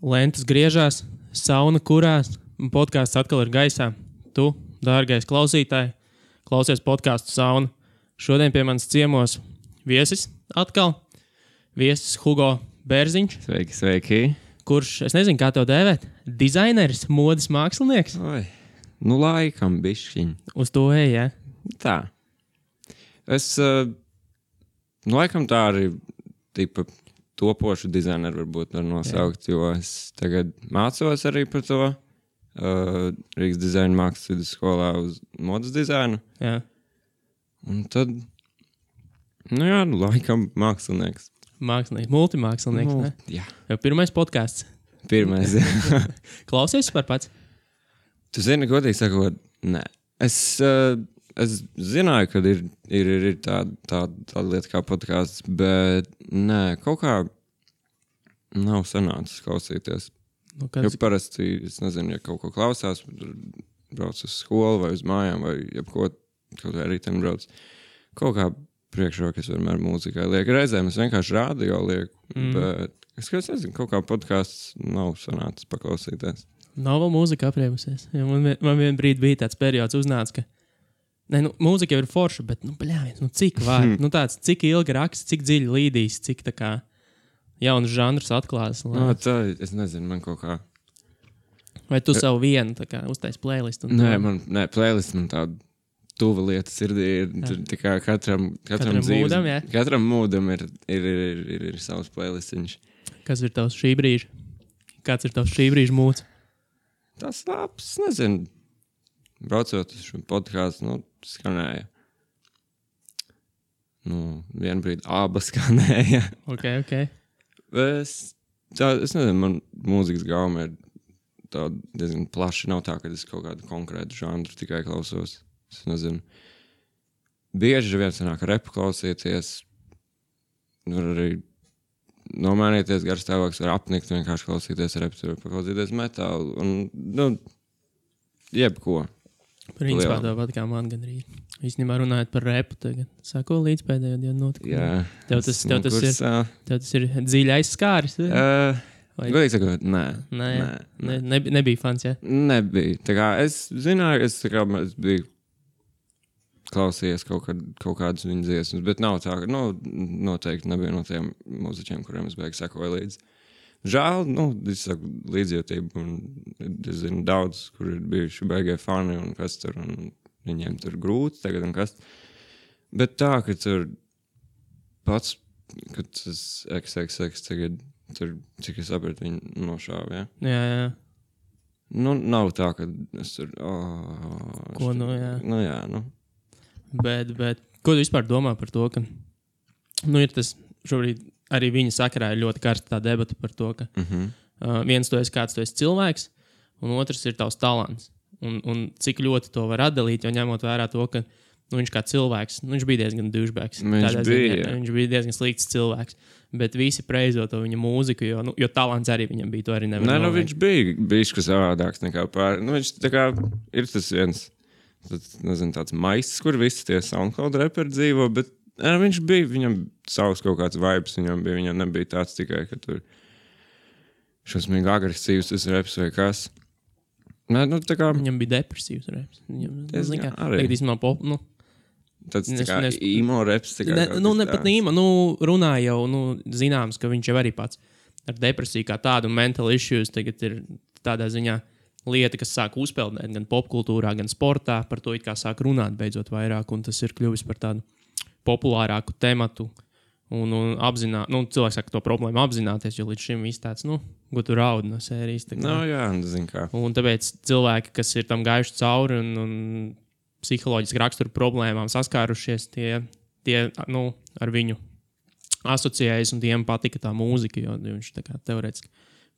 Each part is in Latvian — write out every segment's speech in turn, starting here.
Lentas griežās, sauna kurās, un podkāsts atkal ir gaisā. Tu, dārgais klausītāj, klausies podkāstu Sauna. Šodien pie manis ciemos viesis atkal. Viesis Hugo Bērziņš. Sveiki, sveiki. Kurš, es nezinu, kā tev dēvēt, dizaineris, modes mākslinieks. Oi, nu laikam bišķiņ. Uz to ej, ja? Tā. Es, laikam tā arī tipa topošu dizaineru varbūt var nosaukt, jo es tagad mācos arī par to Rīgas dizaina mākslas vidusskolā uz modes dizainu. Jā. Un tad, laikam mākslinieks. Mākslinieks, multimākslinieks, ne? Jā. Jau pirmais podkāsts. Pirmais, jā. Klausies par pats? Tu zini, godīgi sakot, nē. Es zināju, ka ir tāda lieta kā podkāsts, bet nē, kaut kā nav sanācis klausīties. Nu, Jo parasti, es nezinu, ja kaut ko klausās, brauc uz skolu vai uz mājām vai jebko, kaut vai rītdien brauc. Kaut kā priekšrokas vienmēr mūzikai liek. Reizēm es vienkārši radio lieku, bet es nezinu, kaut kā podkāsts nav sanācis paklausīties. Nav vēl mūzika apriebusies. Ja man vien brīdi bija tāds periods uznāca, ka mūzika jau ir forša, bet, cik var? Cik ilgi raksts, cik dziļi līdīs, cik tā kā jaunas žanrus atklās. Tā, es nezinu, man kaut kā... Vai tu savu vienu tā kā uztais playlistu? Nē, playlist man tāda tuva lieta sirdī ir tikai katram dzīves... mūdam, jā? Katram mūdam ir savs playlistiņš. Kas ir tavs šī brīža? Kāds ir tavs šī brīža mūds? Tas labs, nezinu. Braucot uz šo podkāstu, skanēja. Vienu brīdi abas skanēja. Ok. Es nezinu, man mūzikas gauma ir tā diezgan plaši. Nav tā, ka es kaut kādu konkrētu žanru tikai klausos. Es nezinu. Bieži vien sanāk repu klausīties. Var arī nomainīties gars stāvoklis, var apnikt, vienkārši klausīties repu, var paklausīties metālu. Un, jebko. Principā tāpat kā man gandrīz. Īstenībā runājot par repu tagad. Sako līdz pēdējo dienu notikumu. Jā. Tev tas ir dziļi aizskāris? Godīgi sakot, nē. Nebija fans, jā? Nebija. Tā kā es zināju, es biju klausījies kaut kādus viņu dziesmas, bet nav tā, ka, noteikti nebija no tiem mūziķiem, kuriem es beigi sekoju līdzi. Žēl, es saku līdzjūtību, un es zinu daudz, kur ir bijuši beigie fani, un kas tur, un viņiem tur grūti tagad, un kas. Bet tā, ka tur pats, kad tas XXX tagad, tur, cik es sapratu, viņi nošāva, ja? Jā. Nav tā, ka es tur, Ko, jā. Bet, ko tu vispār domā par to, ka, ir tas šobrīd arī viņa sakarā ir ļoti karsta tā debata par to, ka viens tu esi kāds, tu esi cilvēks, un otrs ir tavs talants. Un cik ļoti to var atdalīt, jo ņemot vērā to, ka viņš kā cilvēks, viņš bija diezgan douchbags. Viņš bija diezgan slikts cilvēks, bet visi preizo to viņa mūziku, jo talants arī viņam bija, to arī nevar noveikt. Viņš bija bišķi savādāks nekā pār. Viņš tā kā ir tas viens, tāds maisis, kur visi tie SoundCloud reperi dzīvo, bet viņš bija, viņam savs kaut kāds vibes, viņam nebija tāds tikai, ka tur šausmīgi agresīvs tas reps vai kas. Tā kā... Viņam bija depresīvs reps. Arī. Tāds tā kā emo reps. Pat emo, runā jau, zināms, ka viņš jau arī pats ar depresiju kā tādu mental issues tagad ir tādā ziņā lieta, kas sāk uzpeldēt gan popkultūrā, gan sportā, par to it kā sāk runāt beidzot vairāk, un tas ir kļuvis par tādu populārāku tematu un cilvēks saka to problēmu apzināties, jo līdz šim viss tāds, ko tu raudi no sērijas. Jā, zin kā. Un tāpēc cilvēki, kas ir tam gājuši cauri un psiholoģiski raksturu problēmām saskārušies, tie ar viņu asociējas un tiem patika tā mūzika, jo viņš tā kā teorētiski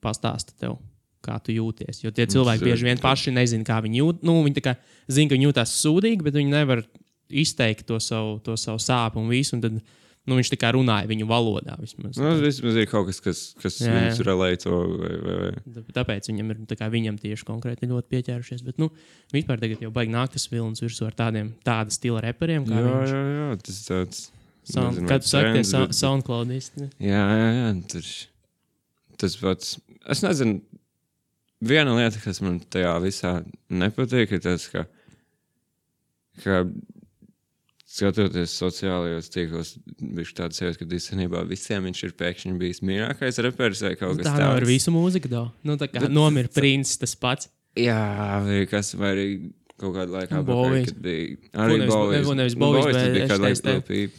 pastāsta tev, kā tu jūties. Jo tie cilvēki bieži vien paši nezin, kā viņi jūt. Viņi tā kā zina, ka viņi jūtās sūdīgi, bet viņi nevar izteikt to savu sāpu un visu, un tad viņš tā kā runāja viņu valodā vismaz. Vismaz ir kaut kas viņus relēto vai... Tāpēc viņam tieši konkrēti ļoti pieķērušies, bet vispār tagad jau baigi nāk tas vilnis virsū ar tāda stila reperiem, kā viņš. Jā, tas tāds... Kā tu saki, tie SoundCloudisti? Jā, tas pats es nezinu, viena lieta, kas man tajā visā nepatīk, ir tas, ka skatoties sociālajos tīklos, viņš tāds sevis, ka īstenībā visiem viņš ir pēkšņi bijis mīļākais reperis vai kaut kas tāds. Tā nav ar visu mūziku, nu, tā kā nomira Prince tas pats. Jā, vai arī kaut kādu laiku apakaļ, kad bija arī Nevis Bovis, bet bija kādu laiku Lil Peep.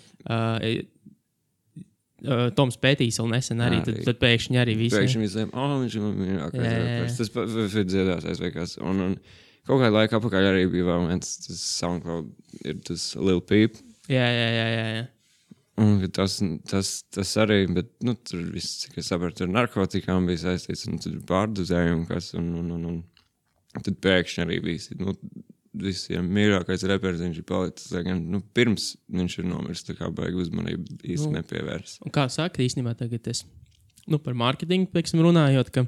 Toms Pētīs vēl nesen arī, tad pēkšņi arī visiem. Pēkšņi visiem, viņš ir mīļākais reperis. Tas ir dziedātais vai kas. Un kaut kādu laiku apakaļ arī bija vēl viens, tas SoundCloud ir tas Lil Peep. Jā. Un tas arī, bet, tur viss, cik es sapratu, tur narkotikām bija saistīts, un tur pārdozējumu kas, un tad pēkšņi arī bija, visiem mīļākais reperis viņš ir palicis, gan, pirms viņš ir nomiris, tā kā baigi uzmanību īsti nepievērs. Un kā saka, īstenībā tagad es, par marketingu, pieksim, runājot, ka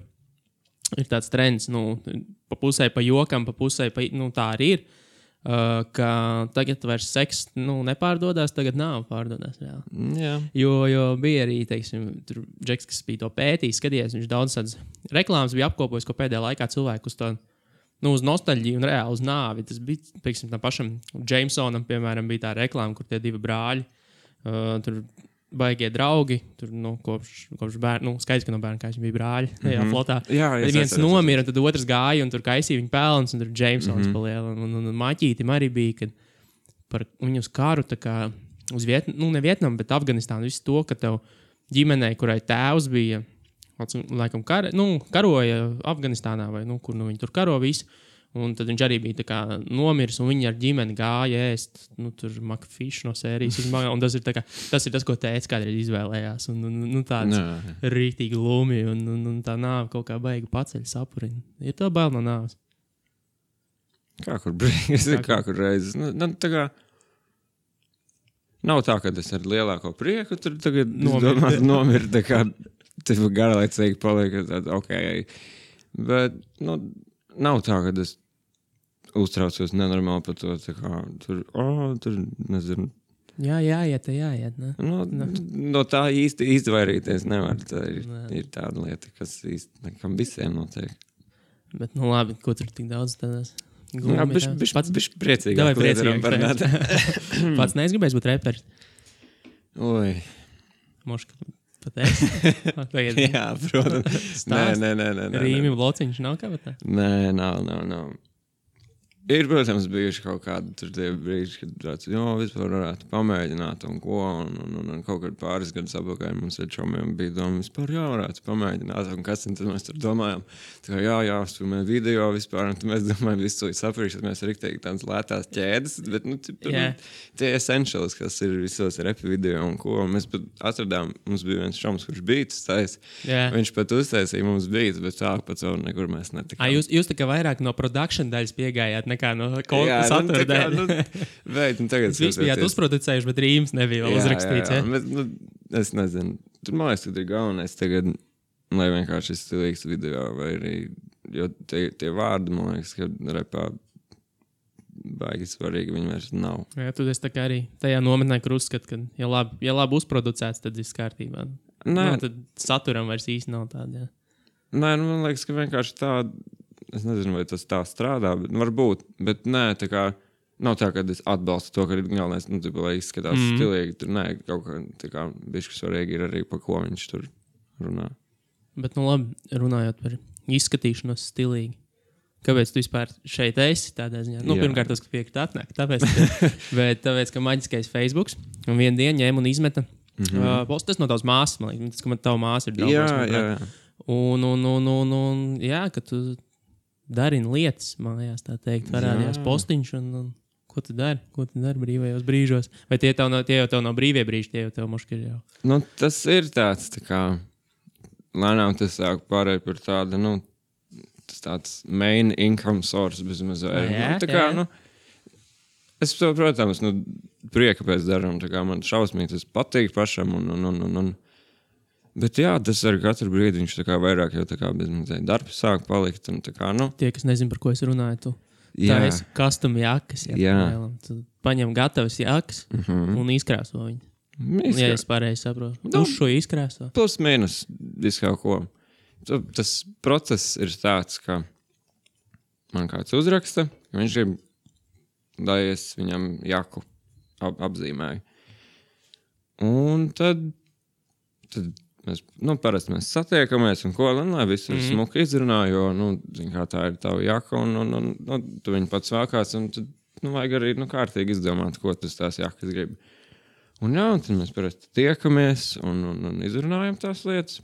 ir tāds trends, pa pusē pa jokam, pa pusē pa, tā arī ir, ka tagad vairs seks, nepārdodās, tagad nav pārdodās reāli. Jā. Jo bija arī, teiksim, tur Džeks, kas bija to pētījis, skaties, viņš daudz tādas reklāmas bija apkopojis, ko pēdējā laikā cilvēku uz to, uz nostalģiju un reāli uz nāvi. Tas bija, pieksim, tam pašam Jamesonam, piemēram, bija tā reklāma, kur tie divi brāļi, tur baigie draugi, tur, kopš bērnu, skaidrs, ka no bērnu, kā viņi bija brāļi, tajā flotā. Jā, viens nomira, un tad otrs gāja, un tur kaisīja viņa pelns, un tur Jamesons paliela. Un Maķītim arī bija, kad par viņu uz karu, tā kā uz ne Vietnamu, bet Afganistānu, visu to, ka tev ģimenei, kurai tēvs bija, laikam karoja Afganistānā vai, kur viņi tur karo visu. Un tad viņš arī bija tā kā nomiris, un viņi ar ģimeni gāja ēst, tur Macfish no sērijas. Un tas ir tas, ko tēvs kādreiz izvēlējās. Un tāds rītīgi lumi, un tā nāve kaut kā baigi paceļ sapuriņu. Ir tā bail no nāves? Kā kur reizes. Tā kā nav tā, ka es ar lielāko prieku tur tagad nomiru, tā kā tas garlaicīgi paliek, tad Bet, nav tā, ka es uztraucos nenormāli par to, tā kā tur, nezinu. Jā, jāiet, ne? No tā īsti izvairīties nevar. Tā ir tāda lieta, kas īsti nekam visiem notiek. Bet, labi, ko tur tik daudz tādās glumi? Jā, bišķi priecīgāk. Pats neizgribēs būt reperis. Oi. Moška. Jā, protams. Nē. Rīmi blociņš nav kā tā? Nē, nav. Ir, protams, bijuši kaut kādi tur tie brīži, kad tāds, vispār varētu pamēģināt un ko, un kaut kad pāris gadus apakaļ mums ar čomiem bija doma, vispār varētu pamēģināt, un kas, un tad mēs tur domājām, tā kā jāuzfilmē video vispār, un tad mēs domājam, visu saprīšu, tad mēs riktīgi tādas lētās ķēdes, bet, tie essentials, kas ir visos repi video un ko, un mēs pat atradām, mums bija viens čoms, kurš beats tais, viņš pat uztaisīja mums beats, bet tā pat savu nekur mēs netikām. Jūs tā kā vairāk no production daļas piegājāt, nekā no satura daļa. Jūs bijāt uzproducējuši, bet rīms nebija vēl uzrakstīts. Jā. Bet, es nezinu. Tur man liekas, ka ir galvenais tagad, lai vienkārši ir stilīgs video, vai arī, jo tie vārdi, man liekas, ka repā baigi svarīgi viņi vairs nav. Jā, tu esi tā kā arī tajā nometnē, kur uzskat, ka ja labi uzproducēts, tad viss kārtībā. Tad saturam vairs īsti nav tāda, jā. Nē, man liekas, ka vienkārši tāda, es nezinu, vai tas tā strādā, bet varbūt, bet nē, tā kā nav tā, ka es atbalstu to, ka ir galvenais, lai izskatās stilīgi, tur nē, kaut kā, tā kā bišķi svarīgi ir arī, pa ko viņš tur runā. Bet, labi, runājot par izskatīšanos stilīgi, kāpēc tu vispār šeit esi tādā ziņā? Pirmkārt, tas, ka piekrīt atnāk, tāpēc, ka maģiskais Facebooks, un vienu dienu ņēma un izmeta, tas no tavas māsas, man liekas, tas, ka tava māsa ir daudz. Jā. Un, ka tu darini lietas, mājās, tā teikt, parādījās postiņš, un ko tu dari brīvajos brīžos? Vai tie jau tev nav brīvie brīži, tie jau tev moški ir jau? Tas ir tāds, tā kā, lēnām tas sāk pārēt par tādu, tas tāds main income source bezmaz vairāk. Es to, protams, prieka pēc daram, tā kā man šausmīgi tas patīk pašam, bet jā, tas ar katru brīdi viņš tā kā vairāk jau tā kā bezmazliet darbs sāk palikt. Un tā kā, Tie, kas nezin, par ko es runāju, tu taisi custom jakas. Tu paņem gatavas jakas un izkrāso viņu. Ja es pareizi saprotu. Uz šo izkrāso. Plus mīnus visu kaut ko. tas process ir tāds, ka man kāds uzraksta, ka viņš grib, lai es viņam jaku apzīmēju. Un tad mēs, parasti mēs satiekamies un ko, lai viss ir smuki izrunā, jo, zin kā tā ir tava jaka un tu viņu pats vākās un tad, vajag arī, kārtīgi izdomāt, ko tas tās jakas grib. Un tad mēs parasti tiekamies un izrunājam tās lietas.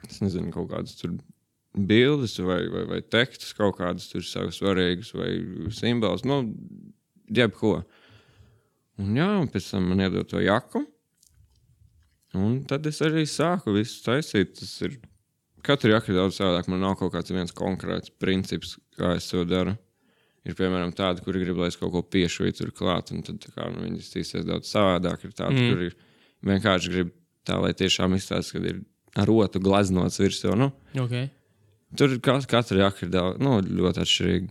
Es nezinu, kaut kādas tur bildes vai tekstus, kaut kādas tur savas svarīgas vai simbols, jebko. Un pēc tam man iedod to jaku. Un tad es arī sāku visu taisīt. Tas ir, katru jaku ir daudz savādāk. Man nav kaut kāds viens konkrēts princips, kā es to daru. Ir, piemēram, tādi, kuri grib, lai es kaut ko piešuju tur klāt, un tad viņi iztīsies daudz savādāk. Ir tādi, kuri vienkārši grib tā, lai tiešām izstāsta, kad ir ar rotu glaznots virsū. Okay. Tur katra jaka ir daudz, ļoti atšķirīga.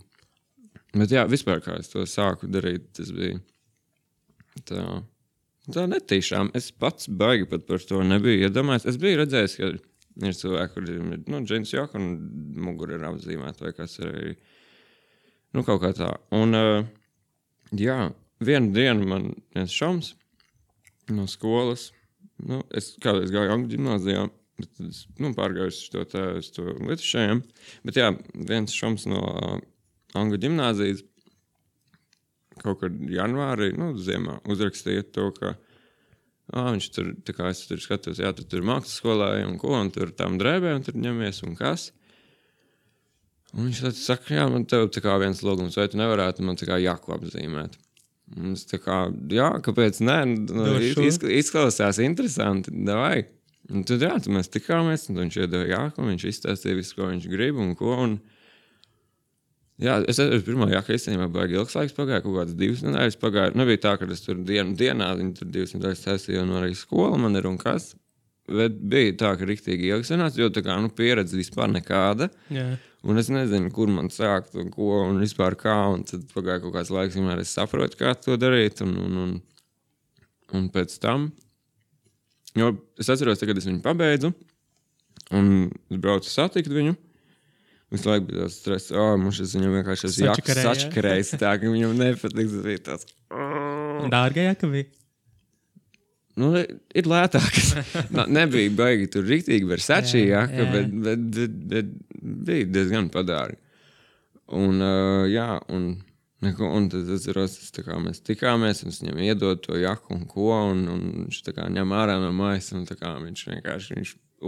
Bet vispār kā es to sāku darīt, tas bija tā netīšām. Es pats baigi pat par to nebiju iedomājies. Es biju redzējis, ka ir cilvēki, kur ir džins jaka un mugura ir apzīmēta vai kas ir arī. Kaut kā tā. Un, vienu dienu man viens šoms no skolas, es kādreiz gāju Angļu ģimnāzijā, bet es, pārgāju uz to Lietušajiem, bet viens šoms no Angļu ģimnāzijas kaut kad janvārī, ziemā, uzrakstīja to, ka viņš tur, tā kā es tur skatos, tur mākslas skolā un ko, un tur tām drēbēm tur ņemies un kas. Un viņš tad saka, man tev tā kā viens logums, vai tu nevarētu man tā kā jaku apzīmēt. Un es tā kā, kāpēc nē, izklausās interesanti, davai. Un tad tad mēs tikāmies, un viņš iedeva jaku, un viņš izstāstīja visu, ko viņš grib un ko. Un, es pirmā jaka īstenībā baigi ilgs laiks pagāja, kaut kādas 2 nedēļas pagāja. Nebija tā, ka es tur dienā, viņi tur 2 nedēļas taisīja, un arī skola man ir un kas. Bet bija tā, ka riktīgi ilgi sanāca, jo tā kā, pieredze vispār nekāda. Jā. Un es nezinu, kur man sākt un ko un vispār kā. Un tad pagāja kaut kāds laiks, vienmēr es saprotu, kā to darīt. Un pēc tam, jo es atceros, kad es viņu pabeidzu, un es braucu satikt viņu. Visu laiku bija tāds stress, mums viņam vienkārši jakas sačakarējis, tā, ka viņam nepatiks. Tas bija tāds. Dārga jaka bija? Ir lētākas. Nebija baigi tur riktīgi Versace jaka, bet bija diezgan padārgi. Un tad atceros, mēs tikāmies, un es viņam iedod to jaku un ko, un viņš tā kā ņem ārā no mājas, un tā kā viņš vienkārši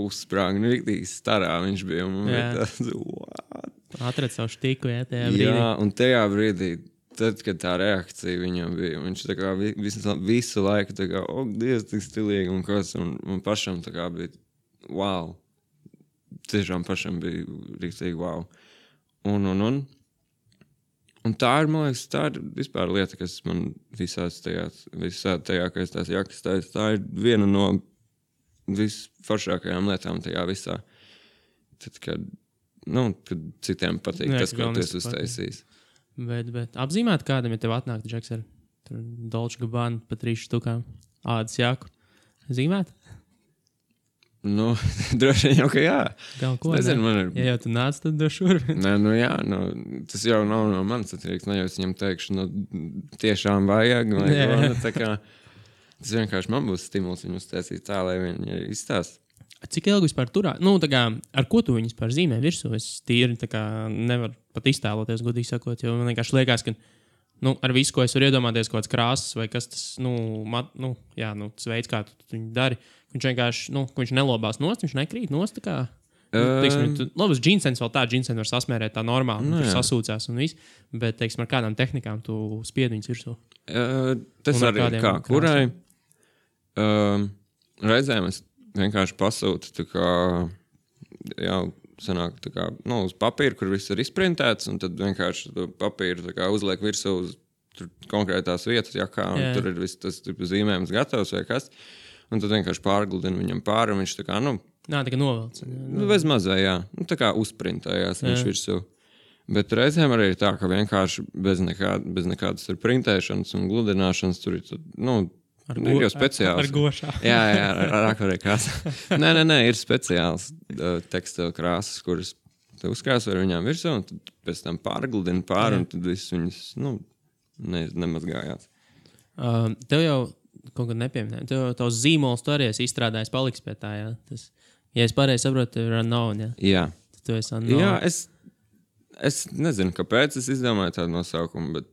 uzsprāga, riktīgi starā viņš bija, un man bija tāds, what? Atred savu štiku, tajā brīdī. Un tajā brīdī, tad, kad tā reakcija viņam bija, viņš tā kā visu laiku tā kā, Dievs, tik stilīgi un kas, un man pašam tā kā bija, wow. Tiešām pašam bija riktīgi wow. Un tā ir, man liekas, tā ir vispār lieta, kas man visā tajā, ka es tās jakas taisu, tā ir viena no visforšākajām lietām tajā visā. Tad, kad citiem patīk tas, ko tu esi uztaisījis. Bet apzīmēt kādam, ja tev atnāk Džeks ar Dolce Gabbana pa 3 štukām ādas jaku. Zīmēt? Droši vien jau, ka jā. Kaut ko, nezinu, man ir. Ja jau tu nāc, tad došu šurp. Nē, tas jau nav no manis atkarīgs. Ne jau es viņam teikšu, tiešām vajag. Tā kā, tas vienkārši man būs stimuls viņu uztaisīt tā, lai viņi izstāst. Cik ilgi vispār turā? Tā kā, ar ko tu viņus par zīmē virsū? Es tīri tā kā nevaru pat iztēloties, godīgi sakot, jo man vienkārši liekas, ka ar visu, ko es varu iedomāties, kaut kāds krāsas vai kas tas, tas veids, kā tu viņu dari, viņš vienkārši, viņš nelobās nost, viņš nekrīt nost, tā kā, labas džinsens vēl tā, džinsen var sasmērēt tā normāli, tur sasūcās un viss, bet, teiksim, ar kādām tehnikām tu spied viņus virsū? Tas arī kā, kurai reizēm es vienkārši pasūtu, tā kā, sanāk, tā kā, uz papīra, kur viss ir izprintēts, un tad vienkārši to papīru tā kā uzliek virsū uz konkrētās vietas, un tur ir viss tas zīmējums gatavs vai kas, un tad vienkārši pārgludina viņam pāri, un viņš tā kā, tā kā novelc. Bez mazai, tā kā uzprintējās viņš virsū. Bet reizēm arī ir tā, ka vienkārši bez nekādas tur printēšanas un gludināšanas tur ir, Ir jau speciāls. Ar gošā. Jā, ar akvarēļu krāsā. Nē, ir speciāls tekstila krāsas, kuras tu uzkrāso ar viņām virsū, un tad pēc tam pārgludini un tad viss viņas, nemazgājās. Tev jau kaut kad nepieminēja. Tev jau tavs zīmols tu arī esi izstrādājis, paliks pie tā, jā? Tas, ja es pareizi saprotu, tev ir unknown, jā? Jā. Tu esi unknown. Jā, es nezinu, kāpēc es izdomāju tādu nosaukumu, bet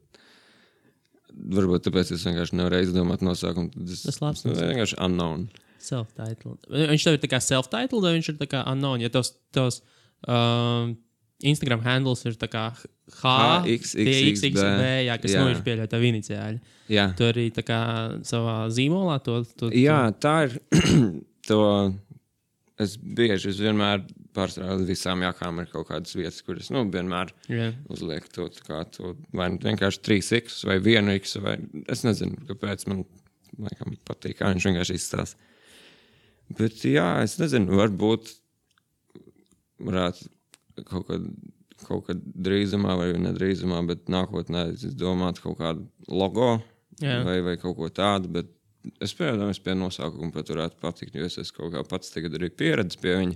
varbūt tāpēc es vienkārši nevarēju izdomāt nosaukumu. Tas labs. Tas vienkārši unknown. Self-titled. Viņš tev ir tā kā self-titled, vai viņš ir tā kā unknown? Ja tavs Instagram handles ir tā kā HXXB, jā, kas viņš pieļauj tavu iniciāļu. Jā. Tu arī tā kā savā zīmolā to... Jā, tā ir to... Es vienmēr pārsvarā visām jākām ir kaut kādas vietas, kuras, vienmēr uzliek to vai vienkārši 3X vai 1X, vai es nezinu, kāpēc man laikam patīk, kā viņš vienkārši izstās. Bet jā, es nezinu, varbūt varētu kaut kad drīzumā vai nedrīzumā, bet nākotnē es domātu kaut kādu logo vai kaut ko tādu, bet es pie nosaukuma pat varētu patikt, jo es esmu kaut kā pats tagad arī pieredzis pie viņa.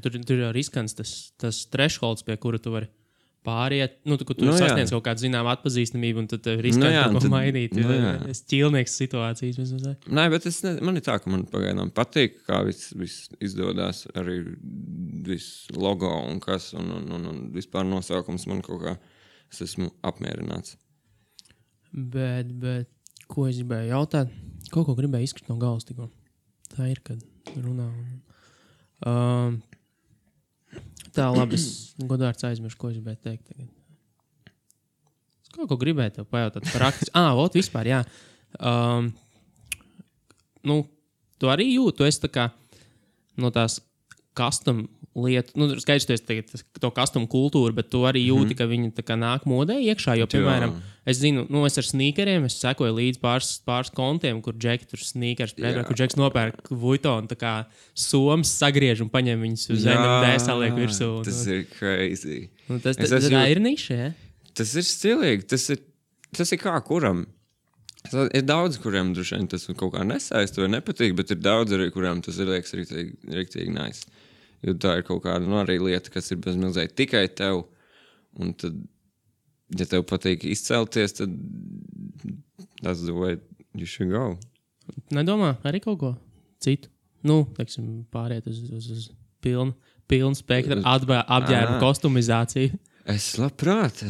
Tur jau ir riskants tas thresholds, pie kura tu vari pāriet. Tu sasniedz kaut kādu zinām atpazīstamību, un tad tev ir riskanti kaut ko mainīt. Es ķīlnieks situācijas. Nē, bet man ir tā, ka man pagaidām patīk, kā viss izdodas, arī viss logo un kas, un vispār nosaukums man kaut kā, es esmu apmierināts. Bet ko es gribēju jautāt? Kaut ko gribēju izkrist no galvas tikko. Tā ir, kad runā. Tā, labi, es godvārds aizmiršu, ko es gribēju teikt tagad. Es kaut ko gribēju tev pajautāt praktiski. Vispār, jā. Tu arī jūti, tu esi tā kā no tās custom lietu, skaidrs, tu esi tagad to custom kultūru, bet tu arī jūti, ka viņi tā kā nāk modē iekšā, jo, piemēram, es zinu, es ar sneakeriem, es sekoju līdz pāris kontiem, kur Džeki tur sneakers, kur Džeks nopērk Vuitton, tā kā somas sagriež un paņem viņus uz NMD saliek virsū. Tas ir crazy. Tas ir niša, ja? Tas ir stilīgi, tas ir kā kuram. Ir daudz, kuriem droši vien tas kaut kā nesaist vai nepatīk, bet ir daudz arī, kuriem tas ir liekas riktīgi nice. Jo tā ir kaut kāda arī lieta, kas ir bezmilzēji tikai tev. Un tad, ja tev patīk izcelties, tad that's the way you should go. Nedomā arī kaut ko citu? Teiksim, pāriet uz pilnu spektru apģērbu kostumizāciju. Es labprāt.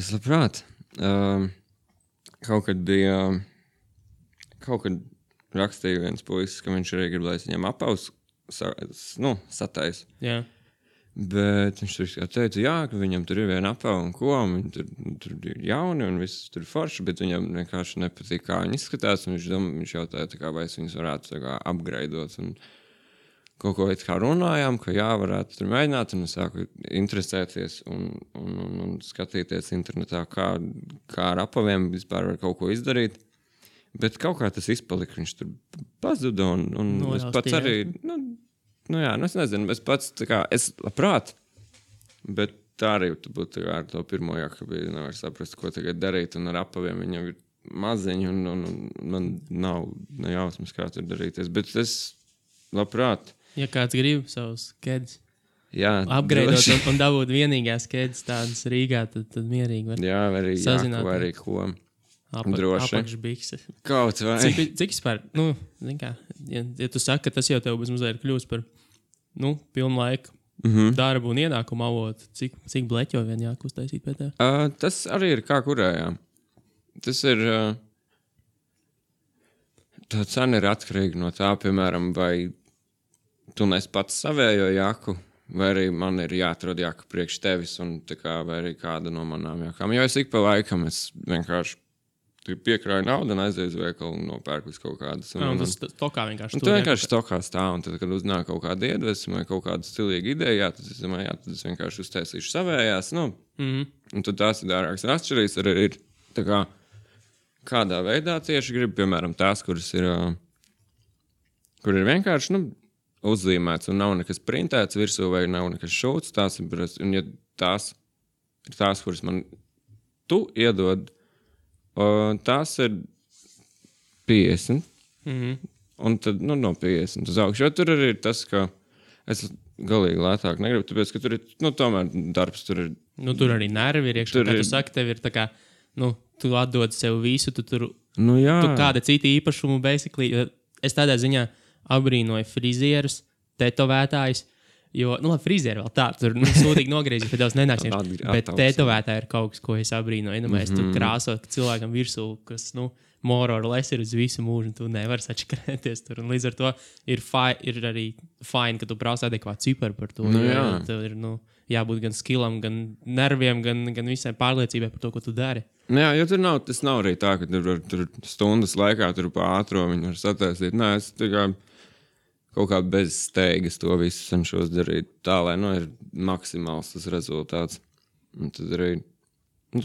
Kaut kad rakstīja viens puisis, ka viņš arī grib, lai es viņam apaus satais. Jā. Bet viņš teica, ka viņam tur ir viena apava un ko, un tur ir jauni un viss tur forši, bet viņam vienkārši nepatīk, kā viņi izskatās, un viņš jautāja, vai es viņus varētu upgradeot, un kaut ko kā runājām, ka varētu tur mēģināt, un es sāku interesēties un skatīties internetā, kā ar apaviem vispār var kaut ko izdarīt. Bet kaut kā tas izpalika, viņš tur pazuda, un es pats arī, es nezinu, es pats, es labprāt, bet tā arī būtu ar to pirmo jākabīdi, nevar saprast, ko tagad darīt, un ar apaviem viņam ir maziņi, un man nav nejausmas, kā tur darīties, bet es labprāt. Ja kāds grib savus kedus upgradeot un dabūt vienīgās kedus tādas Rīgā, tad mierīgi var sazināt. Jā, vai arī ko. Droši. Apakšbikses. Kaut vai. Cik vispār, zin kā, ja tu saki, ka tas jau tev mazliet kļūst par, pilnu laiku darbu un ienākumu avotu, cik bleķo vien jākuztaisīt pēc tev? Tas arī ir kā kurējā. Tas ir, tā cena ir atkarīga no tā, piemēram, vai tu nes pats savējo jaku, vai arī man ir jāatrod jaka priekš tevis, un tā kā, vai arī kāda no manām jakām. Jo es ik pa laikam, es vienkārši piekrāju naudu un aizēju uz veikalu un nopērku kaut kādas. Tas tokā vienkārši. Tu vienkārši tokā stāv, un tad, kad uznāk kaut kāda iedvesma vai kaut kāda stilīga ideja, tad es domāju, tad es vienkārši uztaisīšu savējās. Un tad tās ir dārākas. Un atšķirīgs arī ir tā kā, kādā veidā tieši grib, piemēram, tās, kuras ir, kur ir vienkārši, uzzīmēts un nav nekas printēts virsū vai nav nekas šūts. Tās ir, un ja tās ir tās, kuras man tu iedod, tās ir 50. Un tad, no 50 uz augšu. Jo tur arī ir tas, ka es galīgi lētāk negribu, tāpēc, ka tur ir, tomēr darbs tur ir. Tur arī nervi ir iekšā. Kā tu saki, tev ir tā kā, tu atdod sev visu, tu tur, tu kāda cita īpašumu, basically. Es tādā ziņā abrīnoju frizierus, tetovētājus, jo, frizieri vēl tā, tur sūtīgi nogriezīt, bet daudz nenāks. Bet tetovētāji ir kaut kas, ko es abrīnoju. Mēs tur krāsot cilvēkam virsū, kas, more or less ir uz visu mūžu, un tu nevari sačakarēties tur. Un līdz ar to ir arī fine, ka tu prasa adekvātu ciparu par to. Tev ir, jābūt gan skillam, gan nerviem, gan visai pārliecībai par to, ko tu dari. Jā, jo tas nav arī tā, ka tur stundas laikā tur pa ātro viņi var sataisīt. Nē, es tikai kaut kā bez steigas to visu cenšos darīt tā, lai, ir maksimāls tas rezultāts. Un tad arī,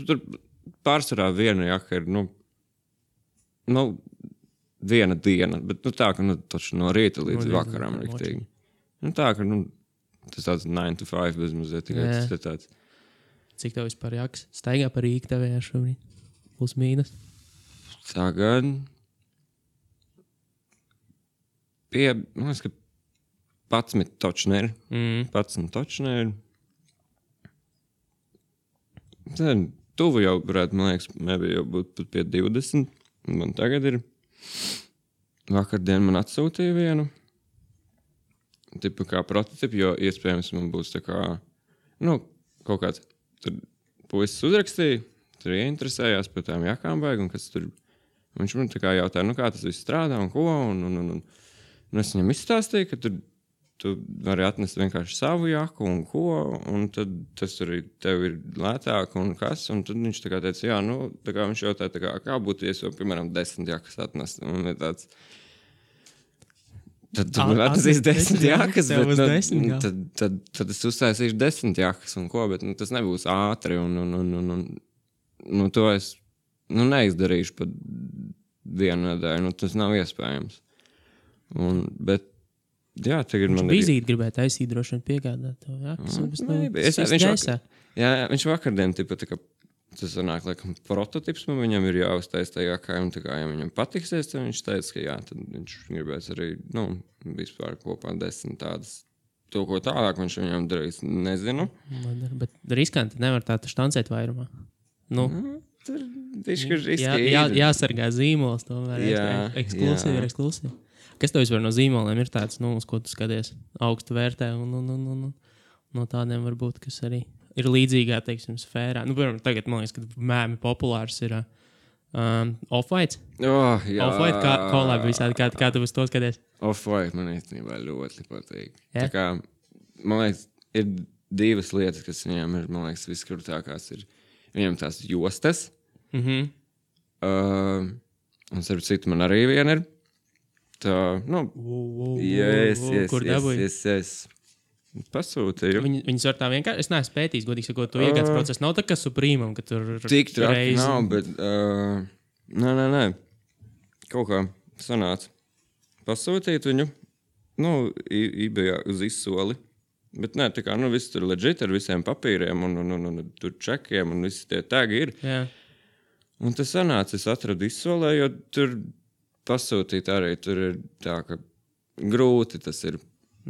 tur pārsvarā viena jaka ir, viena diena, bet tā, ka taču no rīta līdz vakaram riktīgi. Tā, ka tas tāds 9 to 5 bez mazliet tikai tas ir tāds. Cik tev vispār jākas? Staigā par Rīgu tevējā šobrīd? Plus mīnus? Tagad man liekas, ka 11 točneri. 11 točneri. Tad tuvu jau varētu, man liekas, jau būt pat pie 20. Man tagad ir. Vakardien man atsūtīja vienu. Tipu kā prototipu, jo iespējams man būs tā kā, kaut kāds. Tur puisis uzrakstīja, tur ieinteresējās par tām jakām baigi, un kas tur. Viņš man tā kā jautāja, kā tas viss strādā un ko. Un es viņam izstāstīju, ka tu vari atnest vienkārši savu jaku un ko, un tad tas arī tev ir lētāk un kas. Un tad viņš tā kā teica, tā kā viņš jautāja, kā būtu, ja es jau, piemēram, 10 jakas atnest. Un ir tāds. Tad tu man atnesīs 10 jakas, bet tad es uztaisīšu 10 jakas un ko, bet tas nebūs ātri un to es neizdarīšu pat vienu nedēļu, tas nav iespējams. Bet jā, tagad man ir. Vizīti gribētu taisīt, droši vien piegādāt tev, jā? Viņš vakardien tipa tā kā tas sanāk, laikam, prototips man viņam ir jāuztais tajā kā, un tā kā, ja viņam patiksies, tad viņš teica, ka jā, tad viņš gribēs arī, vispār kopā 10 tādas. To, ko tālāk viņš viņam darīs, nezinu. Bet riskanti nevar tā štancēt vairumā. Tur višķi riski. Jāsargā zīmols, tomēr. Eksklusīvi. Kas tev vispār no zīmoliem ir tāds, uz ko tu skaties augstu vērtē un no tādiem varbūt, kas arī ir līdzīgā, teiksim, sfērā. Piemēram, tagad, man liekas, ka mēmi populārs ir Off-White. Off-White, collab visādi, kā tu uz to skaties? Off-White man īstenībā ļoti patīk. Tā kā, man liekas, ir divas lietas, kas viņiem ir, man liekas, viskrūtākās ir. Viņiem tās jostas. Un starp citu man arī viena ir. Tā, kur dabūji? Pasūtīju. Viņas var tā vienkārši, es neesmu pētījis, godīgi sakot, to iegādes procesu. Nav tā kā Suprīmam, ka tur tik traki nav, bet nē. Kaut kā sanāca pasūtīt viņu, eBayā uz izsoli. Bet nē, tā kā, viss tur legit ar visiem papīriem un tur čekiem un visi tie tagi ir. Jā. Un tas sanāca, es atradu izsolē, jo tur pasūtīt arī tur ir tā, ka grūti tas ir.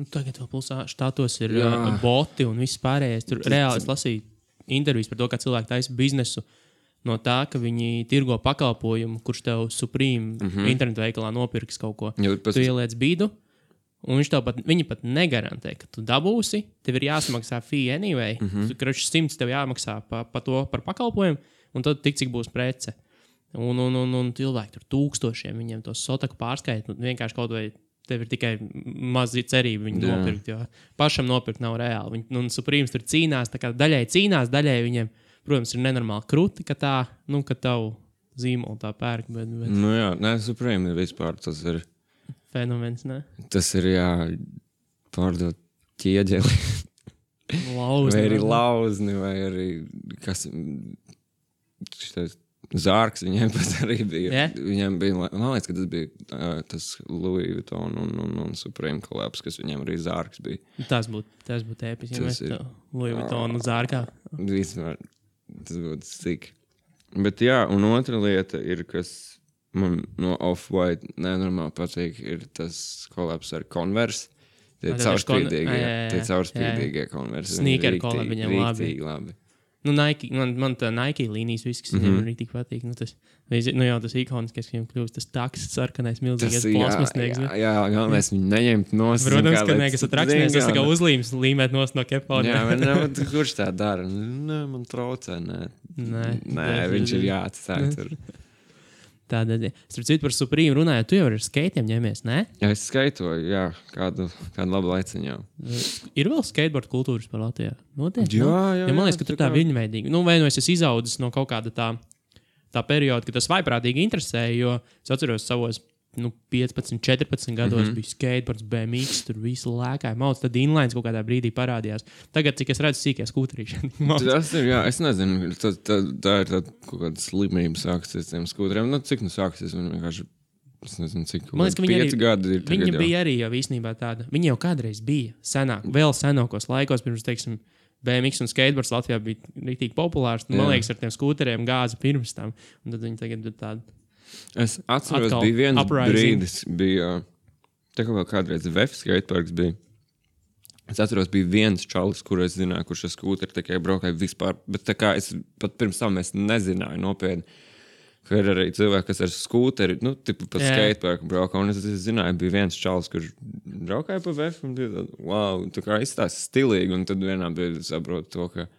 Tagad vēl plusā štātos ir boti un viss pārējais. Tur reāli es lasīju intervijas par to, kā cilvēki taisa biznesu no tā, ka viņi tirgo pakalpojumu, kurš tev Supreme internetu veikalā nopirks kaut ko. Tu ieliec bīdu, un viņi pat negarantē, ka tu dabūsi, tev ir jāsamaksā fee anyway. Kraču 100 tev jāmaksā par pakalpojumu, un tad tik cik būs prece. Un cilvēki tur tūkstošiem, viņiem to sotaku pārskait, vienkārši kaut vai tev ir tikai mazi cerība viņu nopirkt, jo pašam nopirkt nav reāli. Supreme tur cīnās, tā kā daļai cīnās, daļai viņiem, protams, ir nenormāli kruti, ka tā, ka tavu zīmolu tā pērk. Bet... Supreme ir vispār, tas ir... Fenomens, ne? Tas ir, pārdot ķieģeli. Lauzni. Vai arī lauzni, vai arī, kas... Šitais... Zārks viņiem pat arī bija. Yeah. Viņiem bija, man liekas, ka tas bija tas Louis Vuitton un Supreme collabs, kas viņiem arī zārks bija. Tas būtu ēpiski, ja mēs Louis Vuitton un zārkā. Vispār, tas būtu sik. Bet un otra lieta ir, kas man no Off-White nenormāli patīk, ir tas kolabs ar Converse. Tie caurspīdīgie Converse. Sneaker kolab viņam labi. Nu, Nike, man tā Nike līnijas viss, kas viņam arī tik patīk. Nu, jau tas ikoniskais, ka viņam kļūst tas taks, sarkanais, milzīgais plasmasnieks. Jā, galvenais viņu neņemt nost. Protams, ka nekas atrakstnieks, tas tā kā uzlīmes līmēt nost no kepona. Jā, kurš tā dara? Nē, man traucē, nē, viņš ir jāatstāj tur. Tādēļ, starp citu par Supreme runājot, tu jau ar skaitiem ņemies, ne? Jā, es skaitoju, jā, kādu labu laiciņu jau. Ir vēl skateboard kultūras par Latvijā? Noteikti, jā. Man liekas, ka tur tā viņveidīgi. Nu, vai nu es izaudzis no kaut kāda tā perioda, ka tas vaiprātīgi interesēja, jo es atceros savos 15, 14 gados bija skateboards, BMX, tur visu lēkāja mauc, tad inlines kaut kādā brīdī parādījās. Tagad, cik es redzu, sīkie skūterīši. Tas ir, jā, es nezinu, tā ir kaut kāda slimība sāksies tiem skūteriem. Cik sāksies, viņi vienkārši, es nezinu, cik man liekas, 5 gadi ir tagad jau. Viņa bija arī jau īstenībā tāda, viņa jau kādreiz bija senāk, vēl senākos laikos, pirms, teiksim, BMX un skateboards Latvijā bija rītīgi populārs, un, man liekas, ar tiem skūteriem gāza pirms tam, un tad viņi tagad ir tāda. Es atceros, bija viens brīdis, tā kā vēl kādreiz VF skateparks bija. Es atceros, bija viens čalis, kur es zināju, kurš ar skūteri tikai braukāja vispār, bet tā kā es pat pirms tam es nezināju nopietni, ka ir arī cilvēki, kas ar skūteri, tipu pat skateparku braukā, un es zināju, bija viens čalis, kurš braukāja pa VF, un bija tāda, wow, tā kā izstās stilīgi, un tad vienā brīdī saprotu to, ka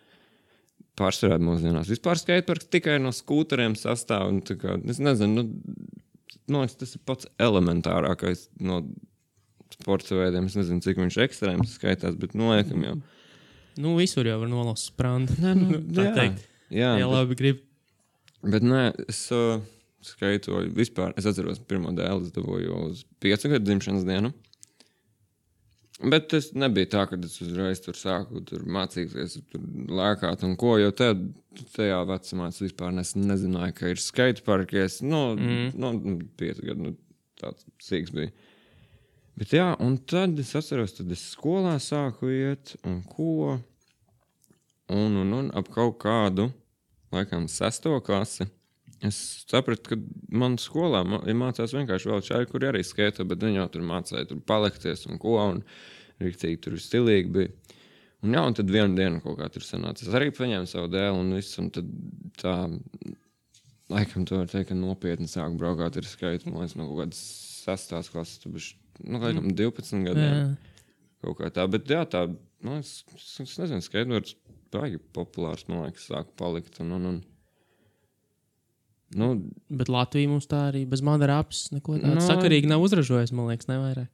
pārsvarā mūsdienās. Vispār skateparks tikai no skūteriem sastāv. Un, kā, es nezinu, tas ir pats elementārākais no sporta veidiem. Es nezinu, cik viņš ekstrēms skaitās, bet noliekam jau. Visur jau var nolaust sprandu. Jā, labi grib. Bet es skaitoju vispār. Es atceros, pirmo dēlu es dabūju uz 5 gadu dzimšanas dienu. Bet tas nebija tā, ka es uzreiz tur sāku mācīties, tur lēkāt un ko, jo tajā vecumā es vispār nezināju, ka ir skateparki. 5 gadu, tāds sīks bija. Bet jā, un tad es atceros, tad es skolā sāku iet un ko. Un ap kaut kādu, laikam, 6. klasi. Es sapratu, ka man skolā mācās vienkārši vēl čaļi, kuri arī skaito, bet viņi jau tur mācīja tur palikties un ko, un riktīgi tur stilīgi bija. Un tad vienu dienu kaut kā tur sanāca. Es arī paņēmu savu dēlu un visu, un tad tā, laikam to var teikt, ka nopietni sāku braukāt ar skaitu, man liekas, no kaut kādas 6. klases, tu bišķi, laikam 12 gadiem. Kaut kā tā, bet jā, tā, man liekas, es nezinu, skateboards baigi populārs, man liekas, sāku palikt, Bet Latvija mums tā arī bez Madara apes neko tādu sakarīgi nav uzražojis, man liekas, nevairāk.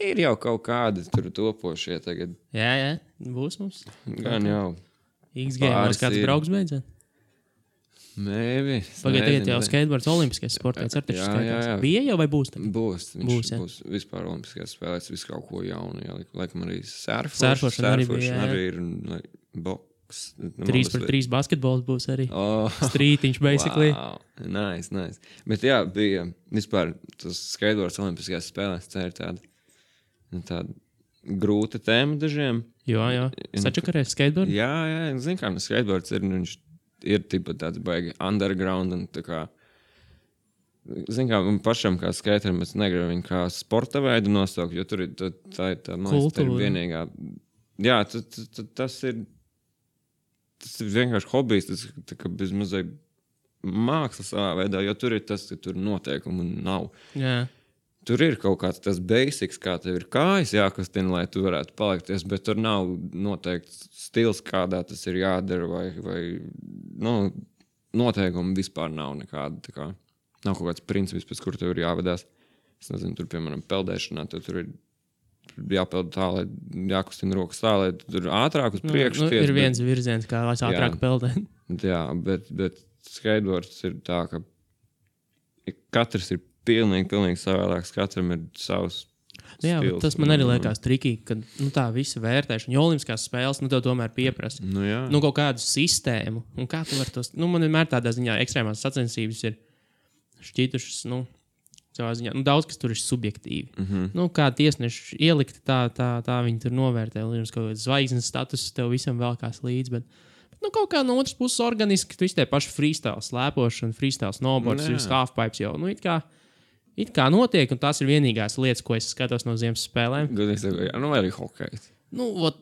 Ir jau kaut kādi tur topošie tagad. Jā, būs mums. Gan jau. XG mums kāds brauks beidzot. Maybe. Pagaidiet, jau skateboards olimpiskais sports ar taču skaitās. Bija jau vai būs? Būs. Viņš būs vispār olimpiskais spēlēs, visu kaut ko jaunu. Jā, laikam arī surfošana arī ir boks. 3x3 basketbols būs arī. Strītiņš, basically. Wow. Nice. Bet jā, bija vispār tas skateboards olimpiskajās spēlēs. Tā ir tāda grūta tēma dažiem. Jā. Sačakarēs skateboards? Jā. Zinu, kā skateboards ir, viņš ir tipa tāds baigi underground un tā kā. Zinu, kā man pašam kā skaterim, es negribu viņu kā sporta veidu nosaukt, jo tur ir tā ir vienīgā. Jā, tas ir vienkārši hobijs, tas ir bez mazai mākslas savā veidā, jo tur ir tas, ka tur noteikumu nav. Jā. Tur ir kaut kāds tas basics, kā tev ir kājas jākustina, lai tu varētu palikties, bet tur nav noteikts stils, kādā tas ir jādara, vai noteikumi vispār nav nekāda. Tā kā, nav kaut kāds princips, pēc kur tev ir jāvedās. Es nezinu, tur, piemēram, peldēšanā, tur ir jāpeld tā, lai jākustina rokas tā, lai tur ātrāk uz priekšu. Ir viens virziens, kā lai ātrāk peldēt. Jā, bet skateboards ir tā, ka katrs ir pilnīgi savādāks, katram ir savs stils. Tas man arī liekas trikīgi, ka tā visa vērtēšana, jo olimpiskās spēles, tev tomēr pieprasa kaut kādu sistēmu. Un kā tu vari tos, man vienmēr tādā ziņā ekstrēmās sacensības ir šķītušas, savā ziņā. Daudz, kas tur ir subjektīvi. Kā tiesneši ielikti, tā viņi tur novērtē. Līdz kaut kāds zvaigznes status tev visam vēl kās līdz, bet kaut kā no otras puses organiski, tu tie paši freestyle slēpošana, freestyle snowboards, halfpipes jau, it kā notiek, un tās ir vienīgās lietas, ko es skatos no ziemas spēlēm. Vai arī hokejs.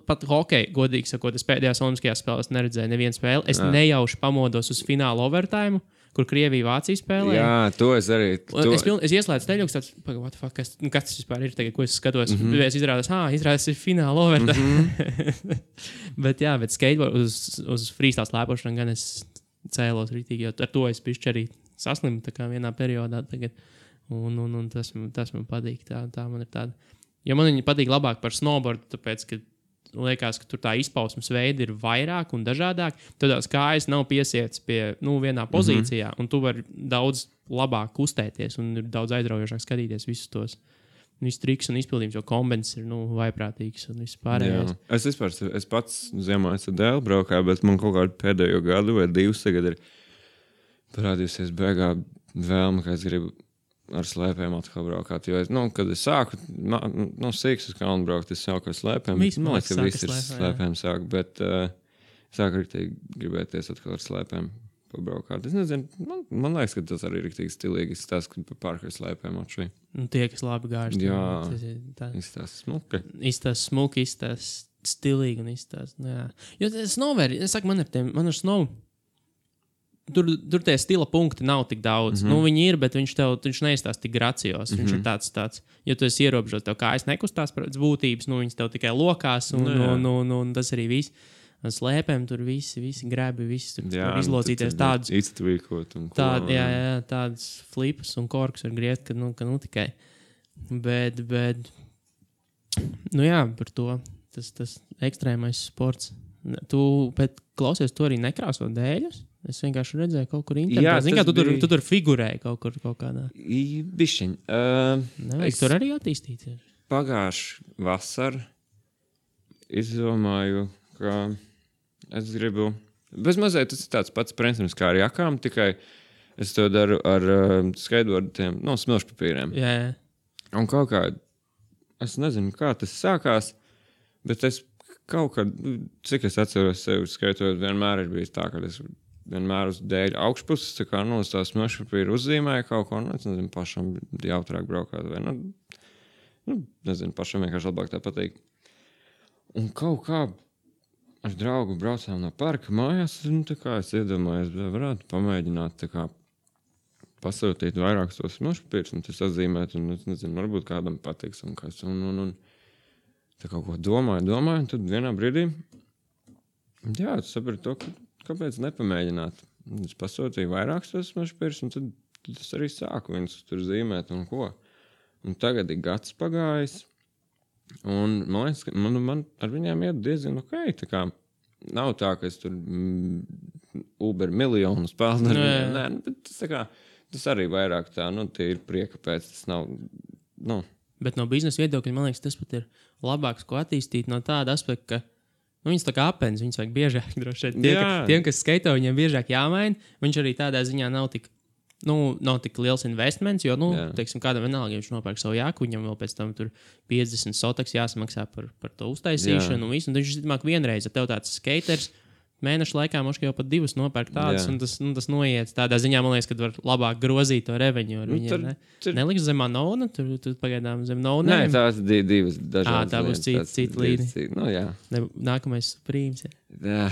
Pat hokeju, godīgi sakot, es pēdējās olimpiskajās spēlēs neredzēju nevienu spēli. Es nejauši pamodos uz fināla overtime, kur Krievija-Vācija spēlē. Jā, to es arī. Es ieslēdzu teļuks, tāds, kas tas vispār ir tagad, ko es skatos. Es izrādās ir fināla overtime. bet skateboard uz freestyle slēpošanu gan es cēlos rītīgi, jo ar to es pišķi arī saslimu tā kā vienā periodā tagad. Un tas man patīk. Tā man ir tāda. Jo man viņa patīk labāk par snowboardu, tāpēc, ka liekas, ka tur tā izpausmes veidi ir vairāk un dažādāk. Tad tās kājas nav piesiets pie vienā pozīcijā, un tu vari daudz labāk kustēties un ir daudz aizraujošāk skatīties visus tos trikus un izpildījumus, jo kombins ir vaiprātīgs un viss pārējais. Es pats ziemā esmu dēļ braukā, bet man kaut kādu pēdējo gadu vai 2 tagad ir parādījusies beigā vēlme, ka es gribu ar slēpēm atkal braukāt. Jo, kad es sāku, sīks uz kalnu braukt, es sāku ar slēpēm. Man liekas, ka viss ir slēpēm sāk, bet sāku arī gribēties atkal ar slēpēm pabraukāt. Es nezinu, man liekas, ka tas arī ir riktīgi stilīgi. Es tās, ka pārkai slēpēm atšķi. Tie, kas labi gāž. Jā, izstās smuki. Izstās smuki, izstās stilīgi un izstās, jā. Jo snowboard, es saku, man ar snow Tur tie stila punkti nav tik daudz. Viņi ir, bet viņš neizstās tik gracios. Viņš ir tāds, ja tu esi ierobežots, tev kājas nekustās pēc būtības, viņas tev tikai lokās, un tas arī viss. Slēpēm tur visi grebi, visi tur izlocīties tādus. Iztvīkot un ko. Tādas flipas un korkus var griezt, ka tikai. Bet, par to. Tas ekstrēmais sports. Tu klausies, tu arī nekrāso dēļus? Es vienkārši redzēju kaut kur internetā. Zini, kā tu tur figurēji kaut kādā. Bišķiņ. Nevajag tur arī attīstīties. Pagājuši vasar izdomāju, ka es gribu... Bezmazliet tas ir tāds pats princips kā ar jakām, tikai es to daru ar skateboardiem, smilšpapīriem. Jā. Un kaut kā, es nezinu, kā tas sākās, bet es kaut kā, cik es atceros sevi skaitot, vienmēr ir bijis tā, ka es vienmēr uz dēļu augšpuses, tā kā, uz tās smilšpapīra uzzīmēju kaut ko, es nezinu, pašam jautrāk braukāt, vai, nezinu, pašam vienkārši labāk tā patīk. Un kaut kā ar draugu braucām no parka mājās, tā kā es iedomājos, varētu pamēģināt, tā kā, pasūtīt vairākus tos smilšpapīrus, un tas atzīmēt, un es nezinu, varbūt kādam patiks, un kas, un tā kaut ko domāju, un tad vienā brīdī, es sapratu to, kāpēc nepamēģināt. Es pasūtīju vairākus tos smilšpapīrus, un tad es arī sāku viņus tur zīmēt un ko. Un tagad ir gads pagājis, un man liekas, ka man ar viņiem iet diezgan ok. Tā kā nav tā, ka es tur Uber miljonus pelnu ar viņiem. Nē, bet tas arī vairāk tā, tie ir prieka pēc, tas nav, Bet no biznesa viedokļa, man liekas, tas pat ir labāks, ko attīstīt no tāda aspekta, ka viņas tā kā apens, viņas vajag biežāk droši vien. Tiem, kas skaito, viņiem biežāk jāmaina. Viņš arī tādā ziņā nav tik liels investments, jo, teiksim, kādam vienalga, ja viņš nopērk savu jāku, viņam vēl pēc tam tur 50 sotaks jāsamaksā par to uztaisīšanu un visu. Un viņš izmāk vienreiz, ja tev tāds skaters, mēnešu laikā mums jau pat 2 nopērk tādas, un tas noiet. Tādā ziņā, man liekas, ka var labāk grozīt to reveņu ar viņiem. Neliks zem Anona, tur pagaidām zem Nona. Nē, tās divas dažādas. Tā būs cita līnija. Jā. Nākamais Supremes. Jā.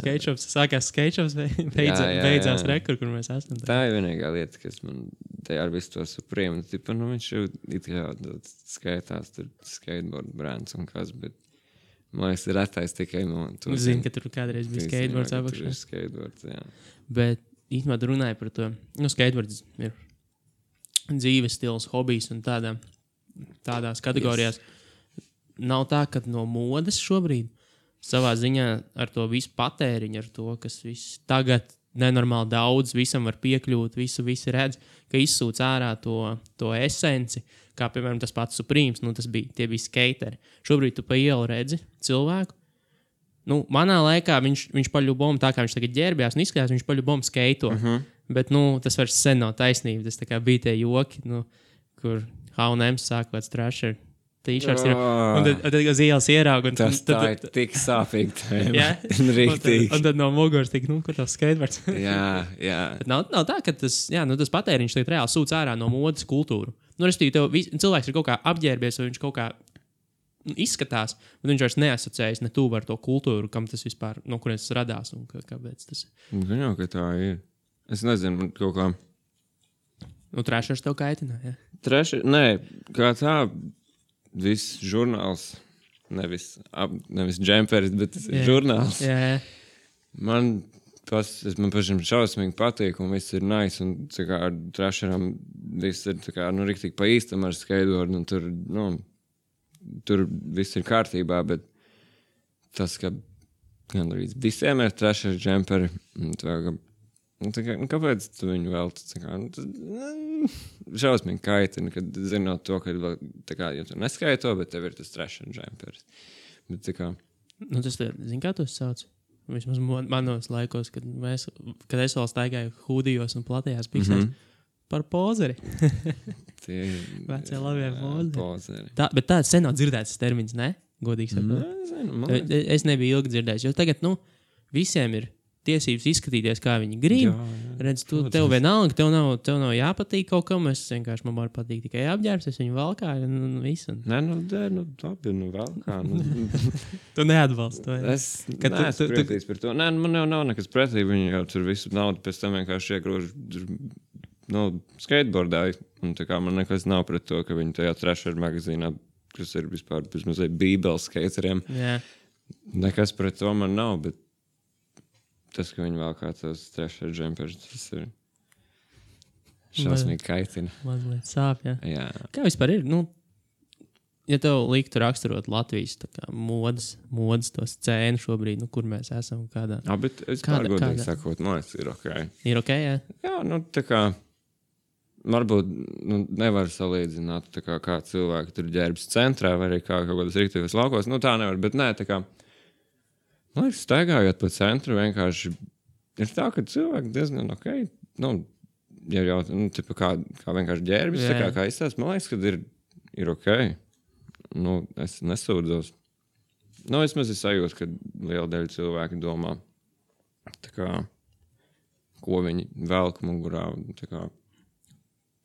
Skateshops, sākās skateshops, beidzās rekur, kur mēs esam. Tā ir vienīgā lieta, kas man te ar visu to Supreme, viņš jau it kā skaitās tur skateboard brands un kas, bet man liekas, ir retais tikai no... Zini, ka tur kādreiz bija skateboards apakšā. Skateboards, jā. Bet īstenībā tu runāji par to. Skateboards ir dzīves stils, hobijs un tādās kategorijās. Nav tā, ka no modes šobrīd savā ziņā ar to visu patēriņu, ar to, kas viss tagad nenormāli daudz, visam var piekļūt, visi redz, ka izsūc ārā to esenci, kā, piemēram, tas pats Supremes, tie bija skateri. Šobrīd tu pa ielu redzi cilvēku. Manā laikā viņš paļubom, tā kā viņš tagad ģērbjās un izskatās, viņš paļubom skaito. Bet, tas vairs sen nav taisnība. Tas tā kā bija tie joki, kur H&M sāk kāds trasher t-shirts ir. Un tad uz ielas ierauga. Tas tā ir tik sāpīgi tēma. Jā. Rīktīgi. Un tad no muguras tik, kur tas skateboards. Jā. Bet nav tā, ka tas patēriņš tagad reāli sūc ārā no modes kultūru. Respektīvi, cilvēks ir kaut kā apģērbies, vai viņš kaut kā izskatās, bet viņš vairs neasociējas ne tuvu ar to kultūru, kam tas vispār, no kurienes tas radās un kāpēc tas ir. Gan jau, ka tā ir. Es nezinu, man kaut kā... Trešais tev kaitina, jā? Nē, kā tā, viss žurnāls, nevis džemperis, bet žurnāls. Jā. Man pašam šausmīgi patīk, un viss ir nice, un tā kā ar trešaram viss ir tā kā, riktīgi pa īstam ar skateboardu, un tur viss ir kārtībā, bet tas, ka gan arī visiem ir trešais džemperi, kāpēc tu viņu vēl šausmīgi kaitina, kad zinot to, ka ja tu neskaito, bet tev ir tas trešais džemperis. Bet tā kā... tas zin, kā tu sauc? Vismaz manos laikos, kad es vēl staigāju hūdijos un platajās piksēs par pozeri. Vecie labie pozeri. Bet tāds sen nav dzirdēts termins, ne? Godīgi sakot. Es nebiju ilgi dzirdējis, jo tagad, visiem ir tiesības izskatīties, kā viņi grib. Redz, tev vienalga, tev nav jāpatīk kaut kam, man var patīk tikai apģērbs, es viņu valkāju un visu. Nē, labi, valkā. Tu neatbalsti to. Es neesmu pretīgs par to. Nē, man jau nav nekas pretī, viņi jau tur visu naudu pēc tam vienkārši iegrož skateboardāju. Un tā kā man nekas nav pret to, ka viņi tajā trešajā magazīnā, kas ir vispār mazliet bībeles skateriem. Jā. Nekas pret to man nav, bet tas, ka viņi vēl kā tos trešais džempers, tas ir šausmīgi kaitina. Mazliet sāp, jā. Kā vispār ir? Ja tev liktu raksturot Latvijas modas to scēnu šobrīd, kur mēs esam, kādā... Bet es pārgodīgi sakot, ir ok. Ir ok, jā? Jā, tā kā... Varbūt nevar salīdzināt, tā kā cilvēki tur ģērbs centrā, vai arī kā kaut kādas rīktīvas laukos. Tā nevar, bet nē, tā kā... Man liekas, staigājot pa centru, vienkārši ir tā, ka cilvēki diezgan ok. Ja jau kā vienkārši ģērbis, tā kā izstāst, man liekas, ka ir ok. Es nesūdzos. Vismaz es sajūtu, ka liela daļa cilvēki domā, tā kā, ko viņi velk mugurā. Tā kā.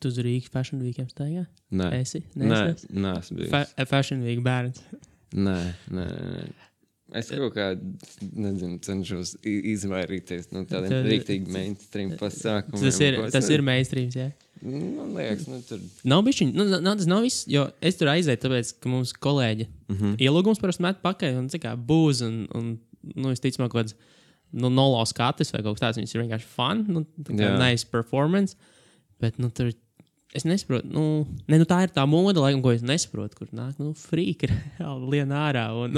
Tu uz Rīgas Fashion Weekiem staigā? Nē. Esi? Nē, esmu bijis. Fashion Week bērns? Nē. Es kaut kā, cenšos izvairīties no tādiem rīktīgi mainstream pasākumiem. Tas ir mainstreams, jā? Man liekas, tur... Nav bišķiņ, tas nav viss, jo es tur aizēju, tāpēc, ka mums kolēģi ielūgums parasti met pakaļ un būs un visticamāk kaut kāds nolo skatis vai kaut kas tāds, viņas ir vienkārši fun, nice performance, bet tur... Es nesaprotu, tā ir tā moda, laikam, ko es nesaprotu, kur nāk, frīka lien ārā, un,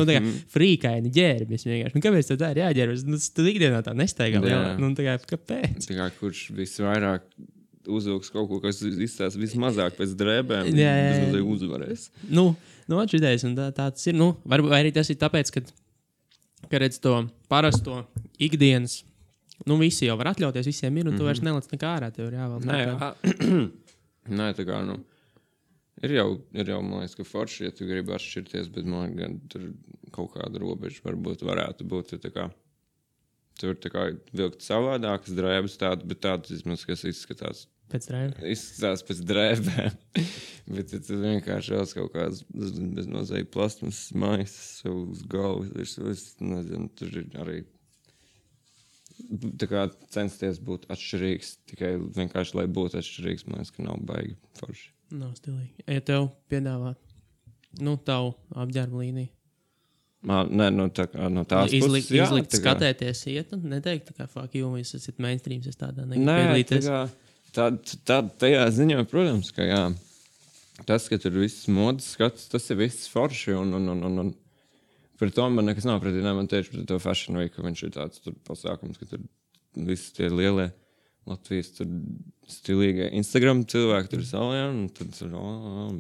frīkaini ģērbis vienkārši. Kāpēc tā ir jāģērbis? Tad ikdienā tā nestaigā. Kāpēc? Tā kā kurš visvairāk uzvilks kaut ko, kas izstās vismazāk pēc drēbēm, vismazāk uzvarēs. Atšķidējas, un tā tas ir, vai arī tas ir tāpēc, ka redz to parasto ikdienas, visi jau var atļauties, visiem ir, un tu vairs nelec nekā ārā, tev ir jāvēl. Nē, tā kā, ir jau, man liekas, ka forši, ja tu gribi atšķirties, bet man gan tur kaut kāda robeža varbūt varētu būt, tā kā, tur tā kā vilkt savādākas drēbes tādu, bet tādas, vismaz, kas izskatās. Pēc drēbēm? Izskatās pēc drēbēm, bet ja tu vienkārši vēl kaut kādas beznozīja plasmas maisas uz galvas, es nezinu, tur ir arī... Tā kā censties būt atšķirīgs, tikai vienkārši, lai būtu atšķirīgs, man liekas, ka nav baigi forši. Nav stilīgi. Ja tev piedāvāt, tavu apģērbu līniju? Nē, tā kā no tās puses, jā. Izlikt skatēties iet, neteikt, tā kā fuck you, jūs esat mainstreams, es tādā nepiedalīties. Nē, tajā ziņā, protams, ka jā. Tas, ka tur viss modas skats, tas ir viss forši un par to man nekas nav pretī. Man tieši par to Fashion Week, ka viņš ir tāds pasākums, ka tur visi tie lielie Latvijas tur stilīgie Instagram cilvēki tur salajā, un tad tur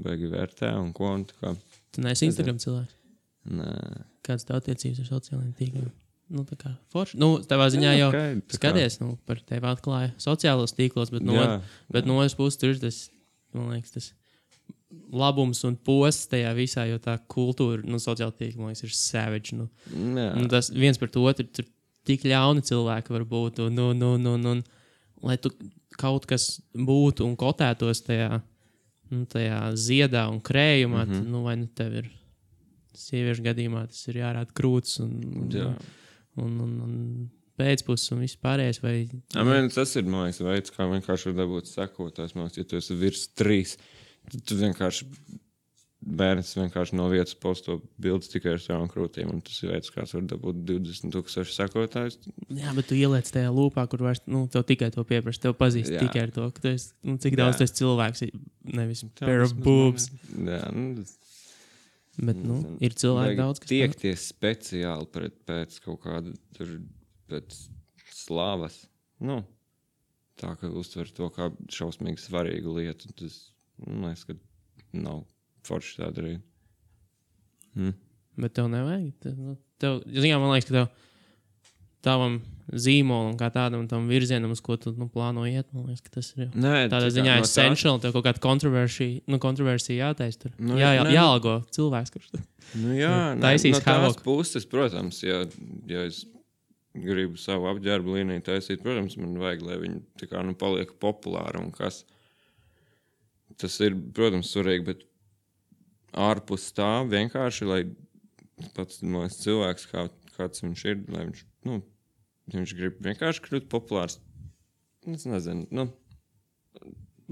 beigi vērtē un ko. Un tā kā. Tu neesi Instagram cilvēks? Nē. Kāds tev attiecības ar sociālajiem tīkliem? Tā kā forši. Tavā ziņā jau skaties, par tevi atklāja sociālos tīklos, bet no otras puses tur ir tas, man liekas, tas labums un posts tajā visā, jo tā kultūra, sociāla tīkla, man liekas, ir savage. Tas viens par to otru, tur tik ļauni cilvēki var būt, un lai tu kaut kas būtu un kotētos tajā ziedā un krējumā, tad, vai tev ir sieviešu gadījumā, tas ir jārāda krūts un pēcpus un viss pārējais. Tas ir, man liekas, veids, kā vienkārši var dabūt sekotājs. Man liekas, ja tu esi virs 3, tad tu vienkārši bērns vienkārši no vietas posto bildes tikai ar savām krūtīm, un tas ir veids, kāds var dabūt 20,000 sekotājus. Jā, bet tu ieliec tajā lūpā, kur vairs, tev tikai to pieprasa, tev pazīst tikai ar to, ka tu esi, cik daudz tu esi cilvēks, nevis pair of boobs. Jā, bet, ir cilvēki daudz, kas tiekties speciāli pēc kaut kāda tur, pēc slāvas, tā, ka uztver to kā šausmīgi svarīgu lietu, tas, man liekas, ka nav forši tā darīt. Bet tev nevajag. Man liekas, ka tavam zīmolam kā tādam tam virzienam, uz ko tu plāno iet, man liekas, ka tas ir tādā ziņā essential, tev kaut kāda kontroversija jātaisa tur. Jāalgo cilvēks, kurš taisīs no tās puses, protams, ja es gribu savu apģērbu līniju taisīt, protams, man vajag, lai viņi tā kā paliek populāri un kas. Tas ir, protams, svarīgi, bet ārpus tā vienkārši, lai pats cilvēks, kāds viņš ir, lai viņš grib vienkārši kļūt populārs. Es nezinu,